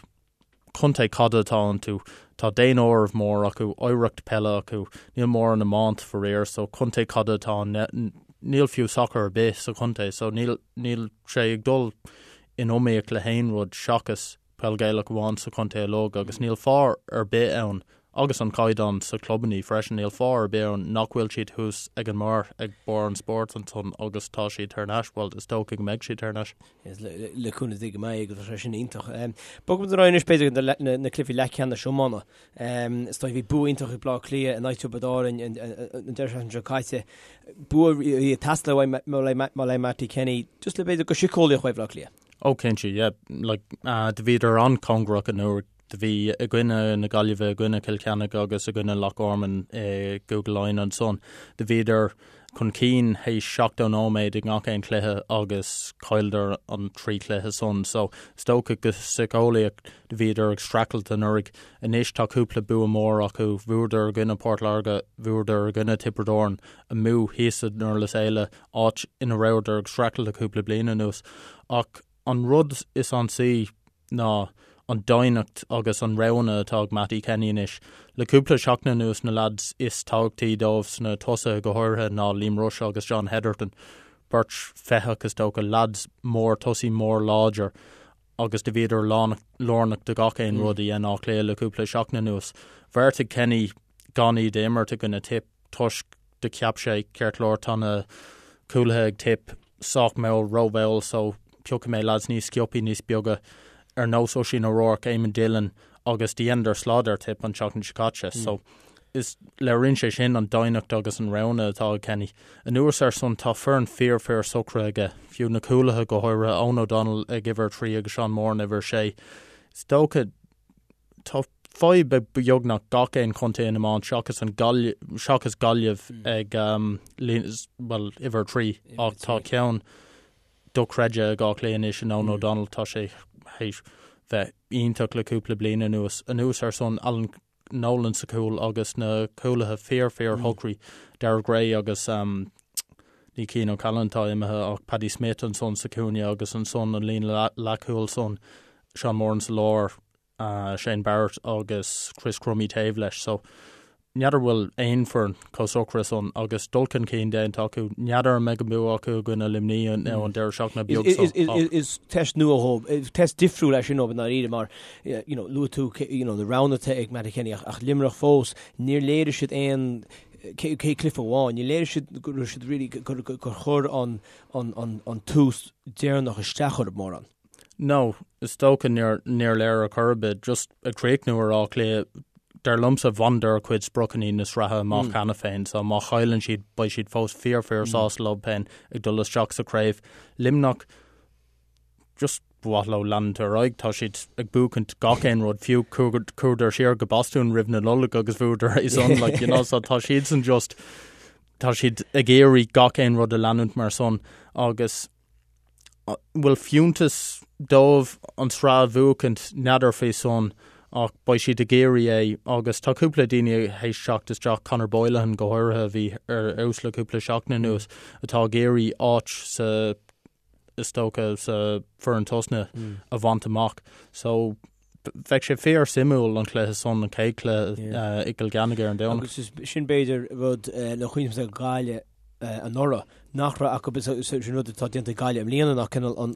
Contae caide atá iontu, tá daonáireamh mór acu, oidhreacht peile acu, níl mórán iomáint faraor, so contae caide atá ann, níl fiú sacar ar bith sa chontae, so níl, níl sé ag dul in iomaíocht le haon rud seachas peil Ghaelach amháin sa chontae uilig agus níl fáth ar bith ann, agus an caighdeán sa chlubannaí freisin, níl fáth ar bith ann nach bhfuil siad thuas ag an mbarr, ag barr an spóirt ansan agus tá siad thar n-ais, bhuel is dócha go mbeidh siad thar n-ais. Le cúnamh Dé go mbeidh agus tá sé sin iontach. Bogfaidh muid ar aghaidh anois b'fhéidir go na cluichí leathcheannais iomána. Is dóigh bhí bua iontach ag Bleá Cliath in aghaidh Tiobraid Árann an deireadh seachtaine seo caite. Bua a bhí ag teastáil uaidh Mattie Kenny just le b'fhéidir go síceolaíoch uaidh Bhleá Cliath. Ó cinnte, yeah. Like, do bhíodar an-chóngarach anuraidh. Do bhí i gcoinne na Gaillimhe, i gcoinne Chill Chainnigh agus i gcoinne Loch Garman i gCúige Laighean ansan. Do bhíodar. chun cinn théis 70 nóiméad i ngach aon chluiche agus chailleadar an 3 chluiche san. So is dócha go síceolaíoch do bhíodar ag streachailt anuraidh. Anois tá cúpla bua mór acu, bhuadar i gcoinne Port Láirge, bhuadar i gcoinne Tiobraid Árann, amuigh thíos i nDurlas Éile, áit ina rabhadar ag streachailt le cúpla bliain anuas. Ach an rud is ansaí ná an doimhneacht agus an roghanna atá ag Mattie Kenny anois. Le cúpla seachtain anuas na leaids is tábhachtaí dóibh sna tosaithe go háirithe ná Liam Rushe agus John Hetherton, beirt feitheach is dócha, leaids mór, tosaí mór láidir agus do bhíodar lárnach do gach aon rud a dhein Áth Cliath le cúpla seachtain anuas. Bheartaigh Kenny gan iad a imirt i gcoinne Tipp toisc do cheap sé, ceart go leor, tá na cúlaithe ag Tipp sách mall, rómhall so piocfaidh mé lads níos sciobthaí, níos beaga, ar nós Oisín O'Rourke, Eamon Dillon agus do dheineadar slad ar Tipp an tseachtain seo caite. So is léiríonn sé sin an doimhneacht agus an roghanna atá ag Kenny. Anuas ar san tá foireann fíor fíor socraithe aige, fiú na cúlaithe go háirithe, Eoghan O'Donnell ag uimhir 3 agus Seán Moran uimhir 6. Is dócha Tá fadhb ag beagnach gach aon chontae in iomáint seachas an seachas Gaillimh ag bhuel, uimhir 3 ach tá ceann dochreidte ag Áth Cliath anois in Eoghan O'Donnell, tá sé théis bheith iontach le cúpla bliain anuas. Anuas ar san Alan Nolan sa chúl agus na cúlaithe fíor fíor shocraí, Daire Gray agus ní Cian O'Callaghan atá imithe ach Paddy Smith ansan sa chúinne agus ansan an líne leathchúil san Seán Moran sa lár, Shane Barrett agus Chris Crummey taobh leis. So n'fheadar bhfuil aon foireann chomh socraithe san agus dul chun cinn déanta acu. N'fheadar an mbeidh an bua acu i gcoinne Luimnigh an deireadh seachtaine beag seo. Is test nua dhóibh, is test difriúil é sin dóibh i ndáiríre mar you know luaigh tú you know na roghanna atá ag Mattie Kenny ach Luimneach fós níor léirigh siad aon cé cluiche amháin, níor léirigh siad go raibh siad really gur chuir an an tús deireanach isteach orthu mórán. No, is dócha níor níor léir ar chor ar bith. Just ag críochnú ar Áth Cliath, dar liomsa bhaineadar a gcuid spriocanna na sraithe amach cheana féin, so má chailleann siad beidh siad fós fíor fíor sásta leo féin ag dul isteach sa chraobh. Luimneach, just ba mhaith leo leanúint ar aghaidh, tá siad ag buachaint gach aon rud, fiú chuadar siar go Bostún roimh na Nollag agus bhuadar é san, like, you know, so tá siadsan just, tá siad ag iarraidh gach aon rud a leanúint mar san agus bhfuil fiúntas dóibh an tsraith a bhuachaint, n'fheadar faoi san ach beidh siad ag iarraidh é agus tá cúpla daoine théis teacht isteach, Conor Boylihan go háirithe a bhí ar fheabhas le cúpla seachtain anuas, atá ag iarraidh áit sa, is dócha, sa foireann tosnaithe a bhaint amach. So bheadh sé fíor suimiúil an cluiche san, an chéad cluiche i gCill Cheannaigh ar an Domhnach. Agus sin b'fhéidir rud le cuimhneamh ag Gaillimh anuraidh nach raibh acu, sin rud atá déanta ag Gaillimh i mbliana ná cineál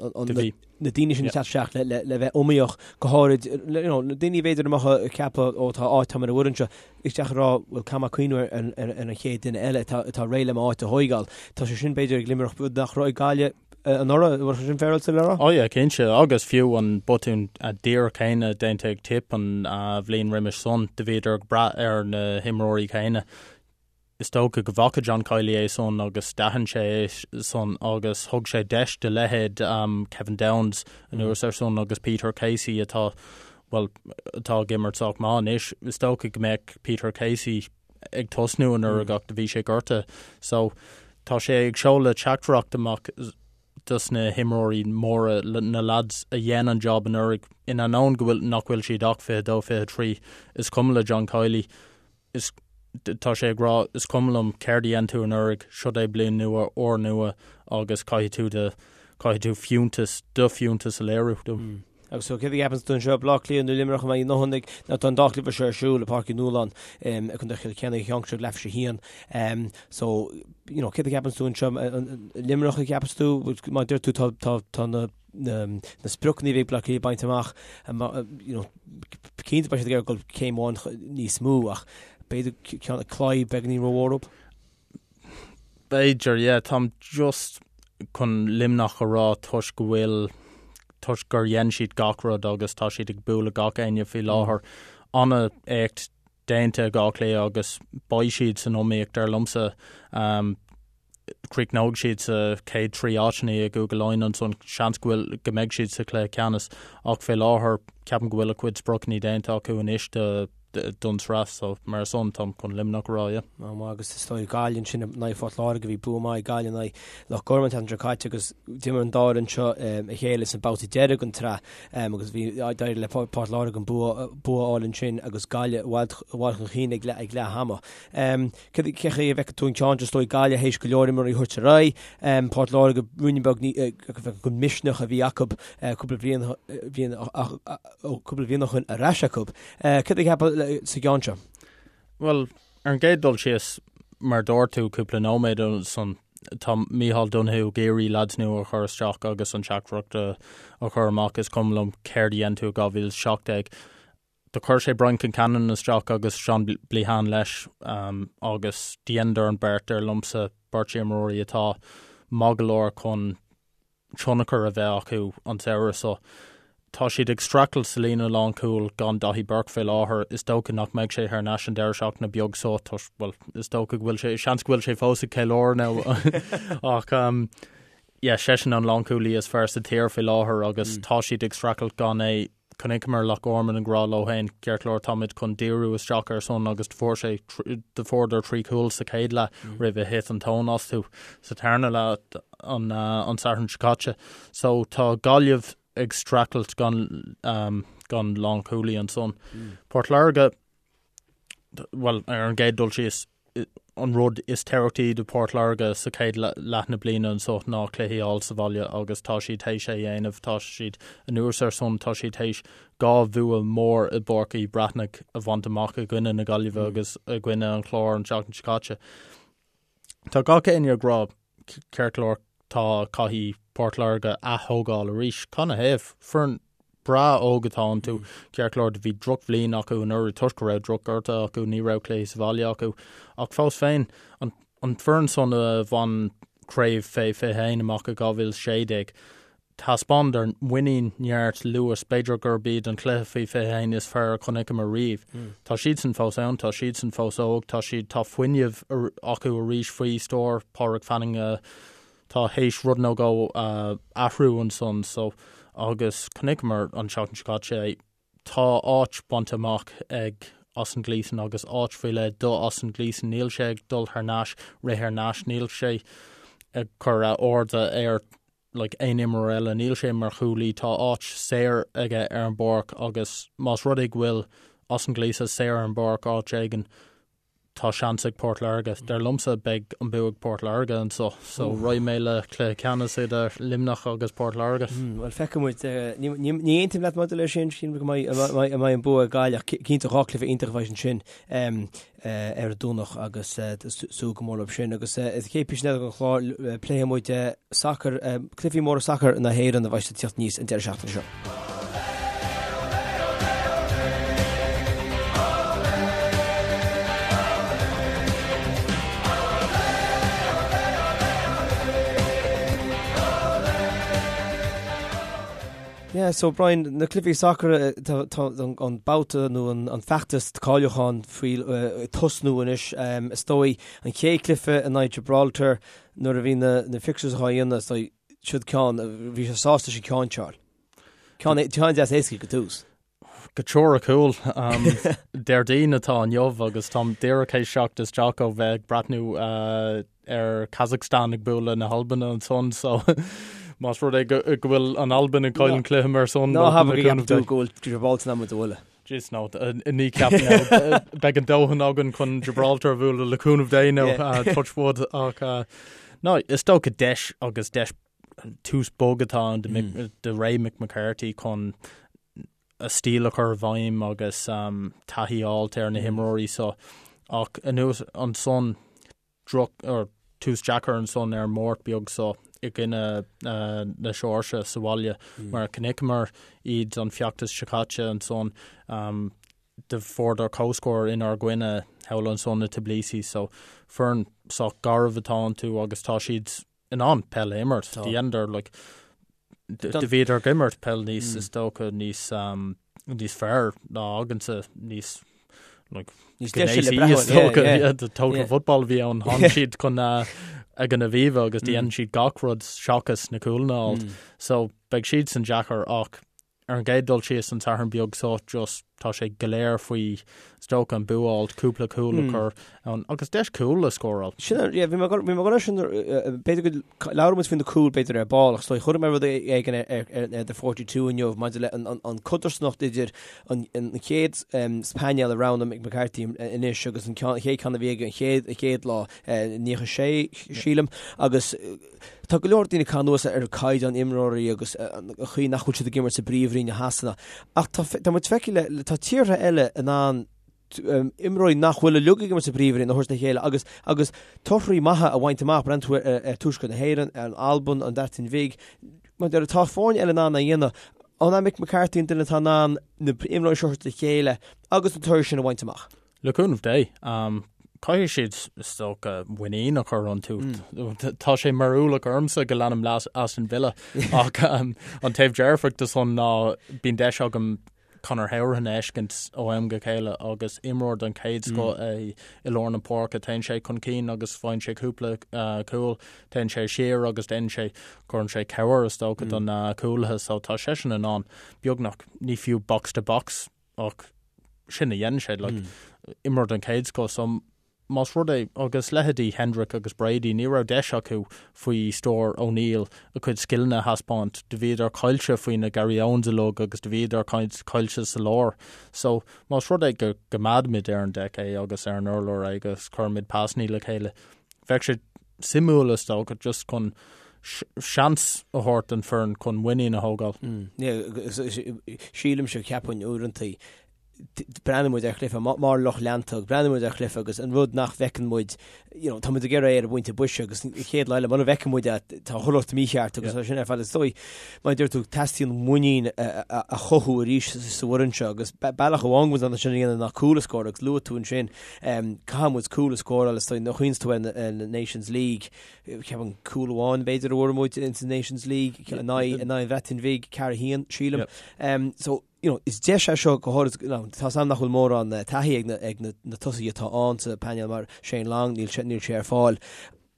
na daoine sin ag teacht isteach le bheith iomaíoch go háirid you know na daoine b'fhéidir a mbeadh ag ceapadh ó tá áit tá mé ar an bhfoireann seo isteach ag rá bhuel caithfidh mé cuimhneamh ar an chéad duine eile atá réidh le m'áit a thóigeáil. Tá sé sin b'fhéidir ag Luimneach rud nach raibh ag Gaillimh anuraidh, bhfuil sé sin féaráilte le rá? Ó yeah, cinnte, agus fiú an botún díreach céanna déanta ag Tipp an bhliain roimis san, do bhíodar ag brath ar na himreoirí céanna. Is dócha go bhfaca John Kiely é san agus d'aithin sé é san agus thug sé deis do leithéid Kevin Downes anuas ar san agus Peter Casey atá, bhuel, atá ag imirt sách maith anois. Is dócha go mbeadh Peter Casey ag tosnú anuraidh ach do bhí sé gortaithe. So tá sé ag seoladh teachtaireacht amach dos na himreoirí móra, na lads a dhein an job anuraidh, in ainneoin go bhfuil, nach bhfuil siad ach 22, 23, is cuma le John Kiely, is, tá sé ag rá, is cuma liom céard a dhein tú anuraidh, siod é bliain nua, uair nua agus caithfidh tú do, caithfidh tú fiúntas, do fiúntas a léiriú dom. Agus so céard a cheapanns tú anseo, Baile Átha Cliath nó Luimneach a mbeidh a ndóthain ag, nó tá an dá chluiche seo ar siúl i Páirc Uí Nualláin i gContae Chill Chainnigh, an ceann seo ag leathuair tar éis a haon. So, you know, céard a cheapanns tú anseo, Luimneach a cheapas tú, mar deir tú tá, tá, tá na, na, na spriocanna a bhí ag Baile Átha Cliath bainte amach, you know, cinnte beidh siad ag iarraidh dul céim amháin níos mó ach b'fhéidir ceann claí beagáinín rómhór dóibh. B'fhéidir, yeah. Táim just chun Luimneach a rá toisc go bhfuil, toisc gur dhein siad gach rud agus tá siad ag bualadh gach éinne faoi láthair. An-éacht déanta ag Áth Cliath agus beidh siad san iomaíocht dar liomsa. Críochnóidh siad sa chéad 3 áiteanna i gCúige Laighean ansan, seans go bhfuil, go mbeidh siad sa chluiche ceannais ach fé láthair ceapaim go bhfuil a gcuid spriocanna déanta acu anois do. don tsraith so mar san táim chun Luimneach a rá, yeah. Á maith agus is dóigh Gaillimh ansin in aghaidh Phort Láirge bhí bua maith ag Gaillimh in aghaidh Loch Gorman an tseachtain seo caite agus d'imir an dá fhoireann seo a chéile sa babhta deiridh den tsraith agus bhí d'éirigh le Port Láirge an bua a fháil ansin agus Gaillimh i bhfad chun cinn ag leath ama. Cé chaoi a bhfeiceann tú an ceann seo is dóigh Gaillimh théis go leor imreoirí a thabhairt ar aghaidh, Port Láirge ruainne beag den misneach a bhí acu cúpla bliain cúpla bliain ó shin ar ais acu. Céard a cheapfá sa gceann seo? Bhuel, ar an gcéad dul síos, mar dúirt tú cúpla nóiméad ansan, tá Micheál Donoghue ag iarraidh leaids nua a chur isteach agus an teachtaireacht a chur amach, is cuma liom céard a dhein tú i 2017. Do chuir sé Brian Concannon isteach agus Seán Bleahan leis agus dheineadar an beart, dar liomsa, beirt imreoirí atá maith go leor chun tionchar a bheith acu an samhradh seo. Tá siad ag streachailt sa líne lánchúil gan Daithí Burke fé láthair. Is dócha nach mbeidh sé thar n-ais an deireadh seachtaine beag seo toisc, bhuel, is dócha go bhfuil sé, seans go bhfuil sé fós ag ceiliúradh now ach yeah, seisean an lánchúlaí is fearr sa tír fé láthair agus tá siad ag streachailt gan é. Chonaiceamar Loch Garman ag rá leo féin, ceart go leor, táimid chun díriú isteach ar san agus do fuair sé, do fuaireadar 3 chúl sa chéad leath roimh a thit an tóin astu sa tarna leath an an Satharn seo caite. So tá Gaillimh ag streachailt gan gan lánchúlaí ansan. Port Láirge, bhuel, ar an gcéad dul síos, an rud is tábhachtaí do Port Láirge sa chéad leath na bliana anso ná cluichí a fháil sa bhaile agus tá siad théis é a dhéanamh. Tá siad anuas ar san, tá siad théis 2 bhua mór i bPáirc Uí Bhreathnaigh a bhaint amach i gcoinne na Gaillimhe agus i gcoinne an Chláir an tseachtain seo caite. Tá gach éinne ag rá, ceart go leor, tá, caithfidh Port Láirge ath-thógáil arís. Canathaobh? Foireann breá óg atá iontu. Ceart go leor, do bhí drochbhliain acu anuraidh toisc go raibh drochghortuithe acu, ní raibh cluichí sa bhaile acu. Ach fós féin, an an foireann san a bhain craobh fé 21 amach i 2016, thaispeánadar muinín, neart, luas, b'fhéidir gurb iad an cluiche faoi 21 is fearr a chonaiceamar riamh. Tá siadsan fós ann, tá siadsan fós óg, tá siad, tá fuinneamh acu arís faoi stiúir Pádraig Fanning a tá théis rud nó dhó a athrú ansan so agus chonaiceamar an tseachtain seo caite é. Tá áit bainte amach ag Austin Gleeson agus áit faoi leith do Austin Gleeson. Níl sé ag dul thar n-ais, rith thar n-ais, níl sé ag cur a airde ar like aon imreoir eile, níl sé mar chúlaí, tá áit saor aige ar an bpáirc agus más rud é go bhfuil Austin Gleeson saor ar an bpáirc áit éigin, tá seans ag Port Láirge. Dar liomsa, beidh an bua ag Port Láirge anso. So, raghaidh mé le cluiche ceannais idir Luimneach agus Port Láirge. Bhuel, feicfidh muid. Ní aontaím leat maidir leis sin, sílim go mbeidh an bua ag Gaillimh ach cinnte 2 cluiche iontach a bheidh ansin ar an Domhnach agus súil go mór leo sin. Agus sa chéad phíosa eile den chlár pléifidh muid sacar, cluichí móra sacair na hÉireann a bheidh ag teacht aníos an deireadh seachtaine seo. Yeah, so Brian, na cluichí sacair, tá an babhta nó an feachtas cáiliúcháin faoi tosnú anois. Is dóigh an chéad chluiche in aghaidh Gibraltar nuair a bhí na fixtures á dhéanamh, is dóigh siod ceann, bhí sé sásta sin ceann seo. Ceann deas éasca go tús. Go teoiriciúil, Déardaoin atá inniu agus táim díreach théis teacht isteach ó bheith ag breathnú ar Kazakhstan ag bualadh na hAlban ansan so más rud é go bhfuil an Albain ag cailleadh an cluiche mar san. Ná habair go gceapann tú go bhfuil Gibraltar in ann muid a bhualadh. Jeez no, ní ceapaim no. Beidh an dóthain againn chun Gibraltar a bhualadh le cúnamh Dé nó touch wood ach no, is dócha deis agus deis tús bog atá ann do ré Mick McCarthy chun a stíl a chur i bhfeidhm agus taithí a fháilt ar na himreoirí so ach anuas ansan droch or tús deacair ansan ar an Máirt beag so i gcoinne na Seoirsia sa bhaile mar chonaiceamar iad an feachtas seo caite ansan do fuaireadar comhscór inár gcoinne thall ansan i Tbilisi so foireann sách garbh atá iontu agus tá siad in ann peil a imirt. Do dheineadar like do bhíodar ag imirt peil níos is dócha níos um, níos fearr ná againnse níos like Níos deise le breathnú, is dócha yeah, the total football a bhí ann tháinig siad chun uh, ag an Aviva agus mm. dhein siad gach rud seachas na cúlanna a fháilt. Mm. So beidh siad san deacair ach ar an gcéad dul síos an Satharn beag so just Tá sé go léir faoi is dócha an bua a fháilt, cúpla cúl a chur ann agus deis cúl a scóráil. Sin é, yeah, bhí mé ag dul air sin, b'fhéidir go labhróidh muid faoi na cúil b'fhéidir ar ball ach is dóigh chuir mé rud éigin ar The 42 inniu maidir le an codarsnacht idir an chéad painéal a roghnaigh Mick McCarthy anois agus an chéad ceann a bhí aige an chéad lá, 96 sílim, agus Tá go leor daoine ag caitheamh anuas ar caighdeán imreoirí agus an chaoi nach bhfuil siad ag imirt sa bpríomhroinn i Shasana. Ach tá tá muid feicthe le tá tíortha eile in ann imreoirí nach bhfuil uilig ag imirt sa bpríomhroinn a thabhairt le chéile agus agus torthaí maithe a bhaint amach. Breathnaíonn tú ar ar Tuaisceart na hÉireann, ar an Albain, an Bhreatain Bhig. Mar deir tá foirne eile in ann a dhéanamh. An é Mick McCarthy an duine atá in ann na imreoirí seo a thabhairt le chéile agus an toradh sin a bhaint amach? Le cúnamh Dé, caithfidh siad, is dócha, muinín a chur iontu. Tá sé mar ualach ormsa go leanaim le Aston Villa ach an taobh dearfach de san ná bíonn deis agam Conor Hourihane a fheiscint ó am go chéile agus imreoir den chéad scoth é i lár na páirce. Téann sé chun cinn agus faigheann sé cúpla cúl, téann sé siar agus déanann sé, cuireann sé cabhair is dócha do na cúlaithe so tá seisean in ann beagnach, ní fiú box to box, ach sin a dhéanann sé, like, imreoir den chéad scoth, so más rud é, agus leithéidí Hendrick agus Brady, ní raibh deis acu faoi stiúir O'Neill a gcuid scileanna a thaispeáint, do bhíodar caillte faoi na Gary Owens uilig agus do bhíodar caillte sa lár. So, más rud é go gcoimeádaimid ar an deic é agus ar an urlár é agus cuirimid pasannaí le chéile, bheadh sé suimiúil is dócha just chun seans a thabhairt don foireann chun muinín a thógáil. Sílimse, ceapaim uaireanta, breathnaíonn muid ar chluiche mar lucht leanta, breathnaíonn muid ar chluiche agus an rud nach bhfeiceann muid, you know, tá muid ag iarraidh é ar an bpointe boise agus an chéad lá eile mura bhfeiceann muid é, tá chuile shórt mícheart agus sin ar fad. Is dóigh, mar a deir tú, teastaíonn muinín a chothú arís sa bhfoireann seo agus bealach amháin go bhfuil sin a dhéanamh ná cúl a scóráil agus luaigh tú ansin Caithfidh muid cúl a scóráil is dóigh nuair a chuimhníonns tú ar na Nations League, ceapaim cúl amháin b'fhéidir a bhfuair muid in sa Nations League in aghaidh an Bhreatain Bhig, 4-1 sílim. So, you know, is deis é seo go háirid, you know, tá 's agam nach bhfuil mórán taithí ag na, ag na, na tosaithe atá ann sa painéal mar Shane Long, níl sé, níl sé ar fáil,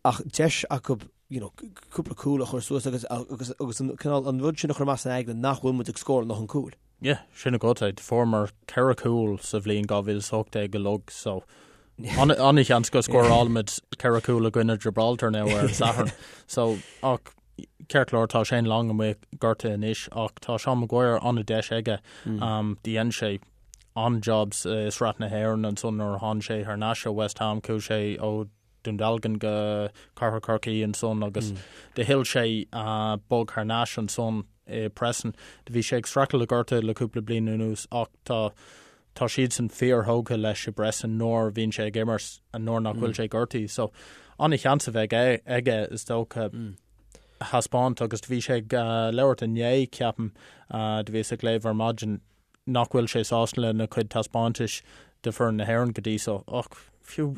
ach deis acu, you know, cúpla cúl a chur suas agus, agus, agus an cineál, an rud sin a chur amach san aigne nach bhfuil muid ag scóráil a ndóthain cúil. Yeah, sin agat é. Fuaireamar 4 chúl sa bhliain 2018 uilig so an-sheans go scórálfaimid 4 chúl i gcoinne Gibraltar now ar an Satharn. So ach ceart go leor tá Shane Long amuigh gortaithe anois ach tá Seán Maguire an-deis aige. Um, dhein sé an-job i Sraith na hÉireann ansan nuair a tháinig sé thar n-ais ó West Ham, chuaigh sé ó Dún Dealgan go Cathair Chorcaí ansan agus do thuill sé bog thar n-ais ansan i Preston. Do bhí sé ag streachailt le gortú le cúpla bliain anuas ach tá tá siadsan fíor-thógtha leis i bPreston nuair a bhíonn sé ag imirt nuair nach bhfuil sé gortaithe. So an-sheans a bheidh aige is dócha a thaispeáint agus do bhí sé ag labhairt inné ceapaim do bhíos ag léamh ar maidin nach bhfuil sé sásta lena chuid taispeántais do foireann na hÉireann go dtí so ach fiú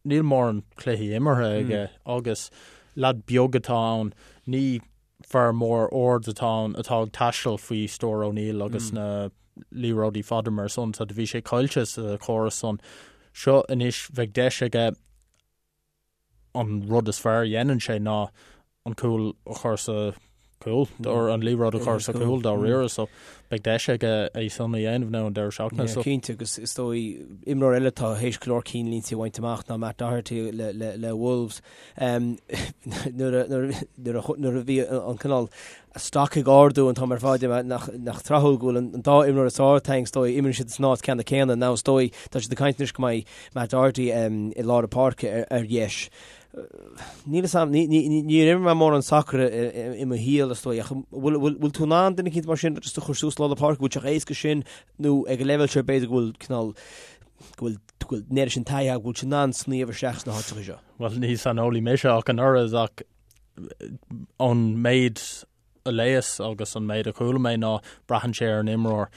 Níl mórán cluichí imeartha aige agus leaid beag atá ann, ní fear mór ard atá ann atá ag taisteal faoi stiúir O'Neill agus na liathróidí fada mar san, so do bhí sé caillte sa chóras san. Seo anois bheidh deis aige an rud is fearr a dhéanann sé ná an cúl a chur sa chúl, or an liathróid a chur sa chúl dáiríre, so beidh deis aige é san a dhéanamh now an deireadh seachtaine. So. Cinnte, agus is dóigh imreoir eile atá théis go leor cinnlínte a bhaint amach ná Matt Doherty le, le, le Wolves. Um, nuair, a, nuair, nuair, a, nuair a bhí an cineál stoc ag ardú an t-am ar fad nach, nach tráthúil go bhfuil an, an dá imreoir is fearr atá againn is dóigh imríonn siad san áit ceanna céanna now is dóigh tá siad ag caint anois go mbeidh Matt Doherty um, i lár na páirce ar, ar dheis. Níl a fhios agam, níor imir mé mórán sacair i mo shaol is dóigh, ach bhfuil tú in ann duine eicínt mar sin just a chur suas i lár na páirce, bhfuil sé chomh héasca sin nó ag an leibhéal seo b'fhéidir go bhfuil cineál, go bhfuil, go bhfuil an oiread sin taithí agat, go bhfuil tú in ann sníomh isteach sna háiteacha seo? Bhuel, ní saineolaí mise ach an oiread ach ón méid a léas agus an méid a chuala mé ná braitheann sé ar an imreoir.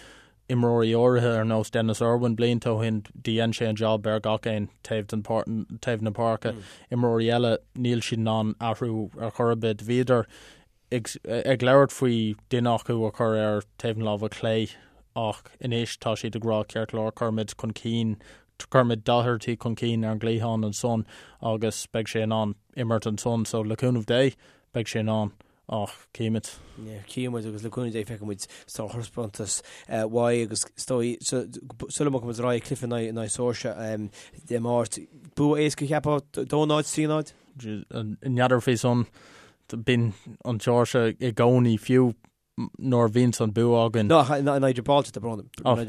Imreoirí áirithe ar nós Denis Irwin blianta ó shin dhein sé an job ar gach aon taobh den taobh na páirce. Imreoirí eile níl siad in ann athrú ar chor ar bith. Bhíodar ag ag labhairt faoi duine acu a chur ar taobh na láimhe clé ach anois tá siad ag rá ceart go leor cuirfimid chun cinn cuirfimid Doherty chun cinn ar an gcliathán ansan agus beidh sé in ann imirt ansan so le cúnamh Dé beidh sé in ann. Ach címid. Címid agus le cúnamh Dé feicfidh muid sárthaispeántas uaidh agus is dóigh sula mbogfaidh muid ar aghaidh cluiche in aghaidh Seoirsia Dé Máirt. Bua éasca cheapfá 2-0, 3-0? N'fheadar faoi san bíonn an tSeoirsia i gcónaí fiú nuair a bhíonns an bua againn. No, in aghaidh Gibraltar, tá brón. Oh, i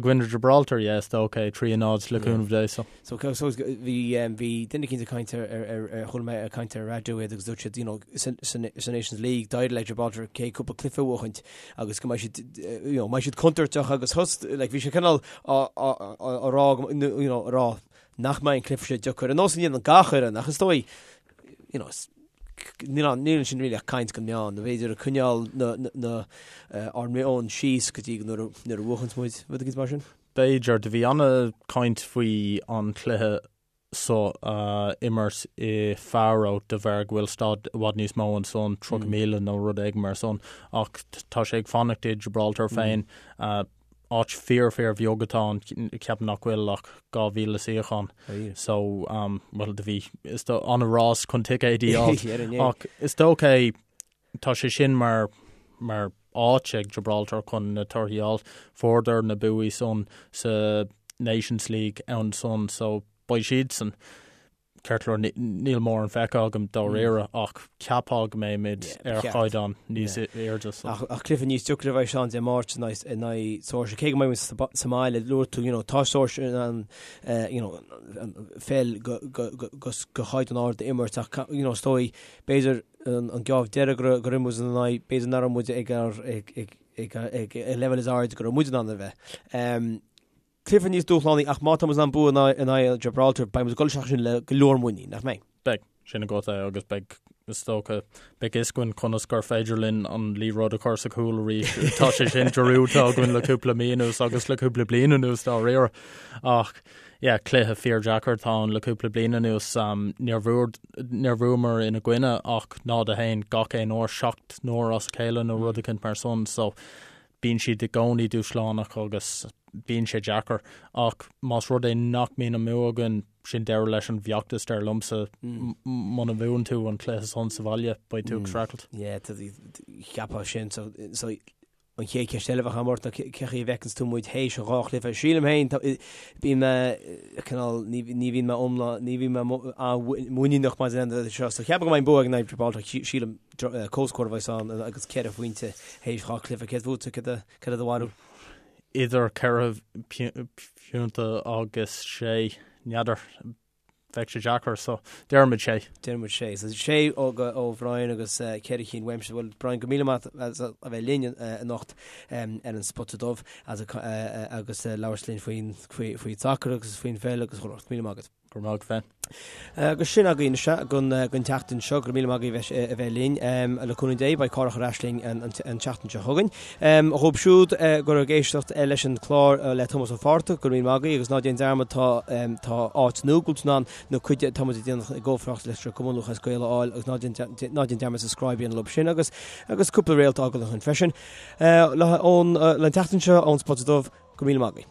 gcoinne Gibraltar, yeah, is dócha é, 3-0 le cúnamh Dé, so. So, so, bhí, um, bhí duine eicínt ag caint ar, ar, ar, ar, chuala mé ag caint ar raidió iad agus dúirt siad, you know, sa, sa, sa Nations League, d'éirigh le Gibraltar cé cúpla cluiche a bhuachaint agus go mbeidh siad, eh, you know, mbeidh siad contúirteach agus thus, like, bhí sé cineál á, á, á, á rá, you know, á rá nach mbeidh an cluiche seo deacair. Ar nós a ndéanann gach fhoireann, ach is dóigh, you know, níl ann, níl ansin really ach caint don meán, nó b'fhéidir ag coinneáil na, na, na, ár meon síos go dtí nuair a, nuair a bhuachanns muid, rud éicint mar sin. B'fhéidir, do bhí ana-chaint faoi an chluiche so a imirt i Faro de bharr go bhfuil staid i bhfad níos mó ansan, 30,000 nó rud éigin mar san, ach tá sé ag fanacht i Gibraltar féin. Áit fíor fíor bheag atá ann, ceapaim nach bhfuil ach 2,000 suíochán. So, bhuel, do bhí, is dóigh, an-rás chun ticéidí a fháil. Ach is dócha é, tá sé sin mar, mar áit ag Gibraltar chun na torthaí a fháil. Fuaireadar na buaí san sa Nations League ansan, so beidh siadsan. Ceart go leor, níl mórán feicthe agam dáiríre ach cheapfá go mbeimid ar chaighdeán níos airde. Ach cluiche níos deacra a bheidh ann Dé Máirt in aghaidh Seoirsia. Cé go mbeidh muid sa mbaile, luaigh tú, you know, tá Seoirsia in ann you know, peil go chaighdeán ard a imirt ach you know, is dóigh, b'fhéidir an geábh deiridh gur imir muid ina n-aghaidh, b'fhéidir nach raibh muid ag ag an leibhéal is airde go raibh muid in ann a bheith. Cluiche níos dúshlánaí ach má tá muid in ann bua in aghaidh Gibraltar, beidh muid ag dul isteach ansin le go leor muinín, nach mbeidh? Beidh, sin agat é agus beidh, is dócha, beidh fhios againn conas gur féidir linn an liathróid a chur sa chúl arís. Tá sé sin dearúdta againn le cúpla mí anuas agus le cúpla bliain anuas dáiríre. Ach, yeah, cluiche fíordheacair atá ann le cúpla bliain anuas. Níor níor bhuamar ina gcoinne ach 0-1 gach aon uair, 7 n-uair as a chéile nó rud eicínt mar san. So, bíonn siad i gcónaí dúshlánach agus bíonn sé deacair ach más rud é nach mbíonn an bua againn, sin deireadh leis an bhfeachtas dar liomsa. Muna bhuann tú an cluiche san sa bhaile, beidh tú ag streachailt. Yeah, cheapfá sin. So, so an chéad cheist eile a bheadh agam ort ná cé chaoi a bhfeiceanns tú muid théis an dhá chluiche. Sílim féin, bíonn mé cineál, ní bhíonn mé iomlán, ní bhíonn mé muiníneach maidir le seo. So cheapfainn go mbeidh an bua ag in Gibraltar, sílim comhscór a bheas ann agus ceithre phointe théis dhá chluiche. Céard fútsa, céard é do bharúil? Idir ceithre phointe agus sé, n'fheadar, bheadh sé deacair, so déarfaimid sé. Déarfaimid sé. So sé ó ó Bhrian agus ceithre chinn uaimse. Bhuel, Brian, go míle maith as a bheith linn anocht ar an Spota Dubh agus labhairt linn faoin faoi faoi sacar agus faoin pheil agus chuile shórt. Míle maith agat. Go raibh maith agat féin. Agus sin againn sea don tseachtain seo. Go raibh míle maith agaibh a bheith linn. Le cúnamh Dé, beidh Cárthach ar ais linn an tseachtain seo chugainn. Dhóibh siúd go raibh ag éisteacht leis an chlár le Tomás Ó Fátharta, go raibh míle maith agaibh agus ná déan dearmad tá tá áit nua go bhfuil tú in ann nó cuid de tá muid ag déanamh i gcomhpháirt leis an Cumann Lúthchleas Gael a fháil agus ná déan ná déan dearmad subscribe a dhéanamh leo sin agus agus cúpla réalt a fhágáil ansin freisin. Le ón le an tseachtain seo ón Spota Dubh, go raibh míle maith agaibh.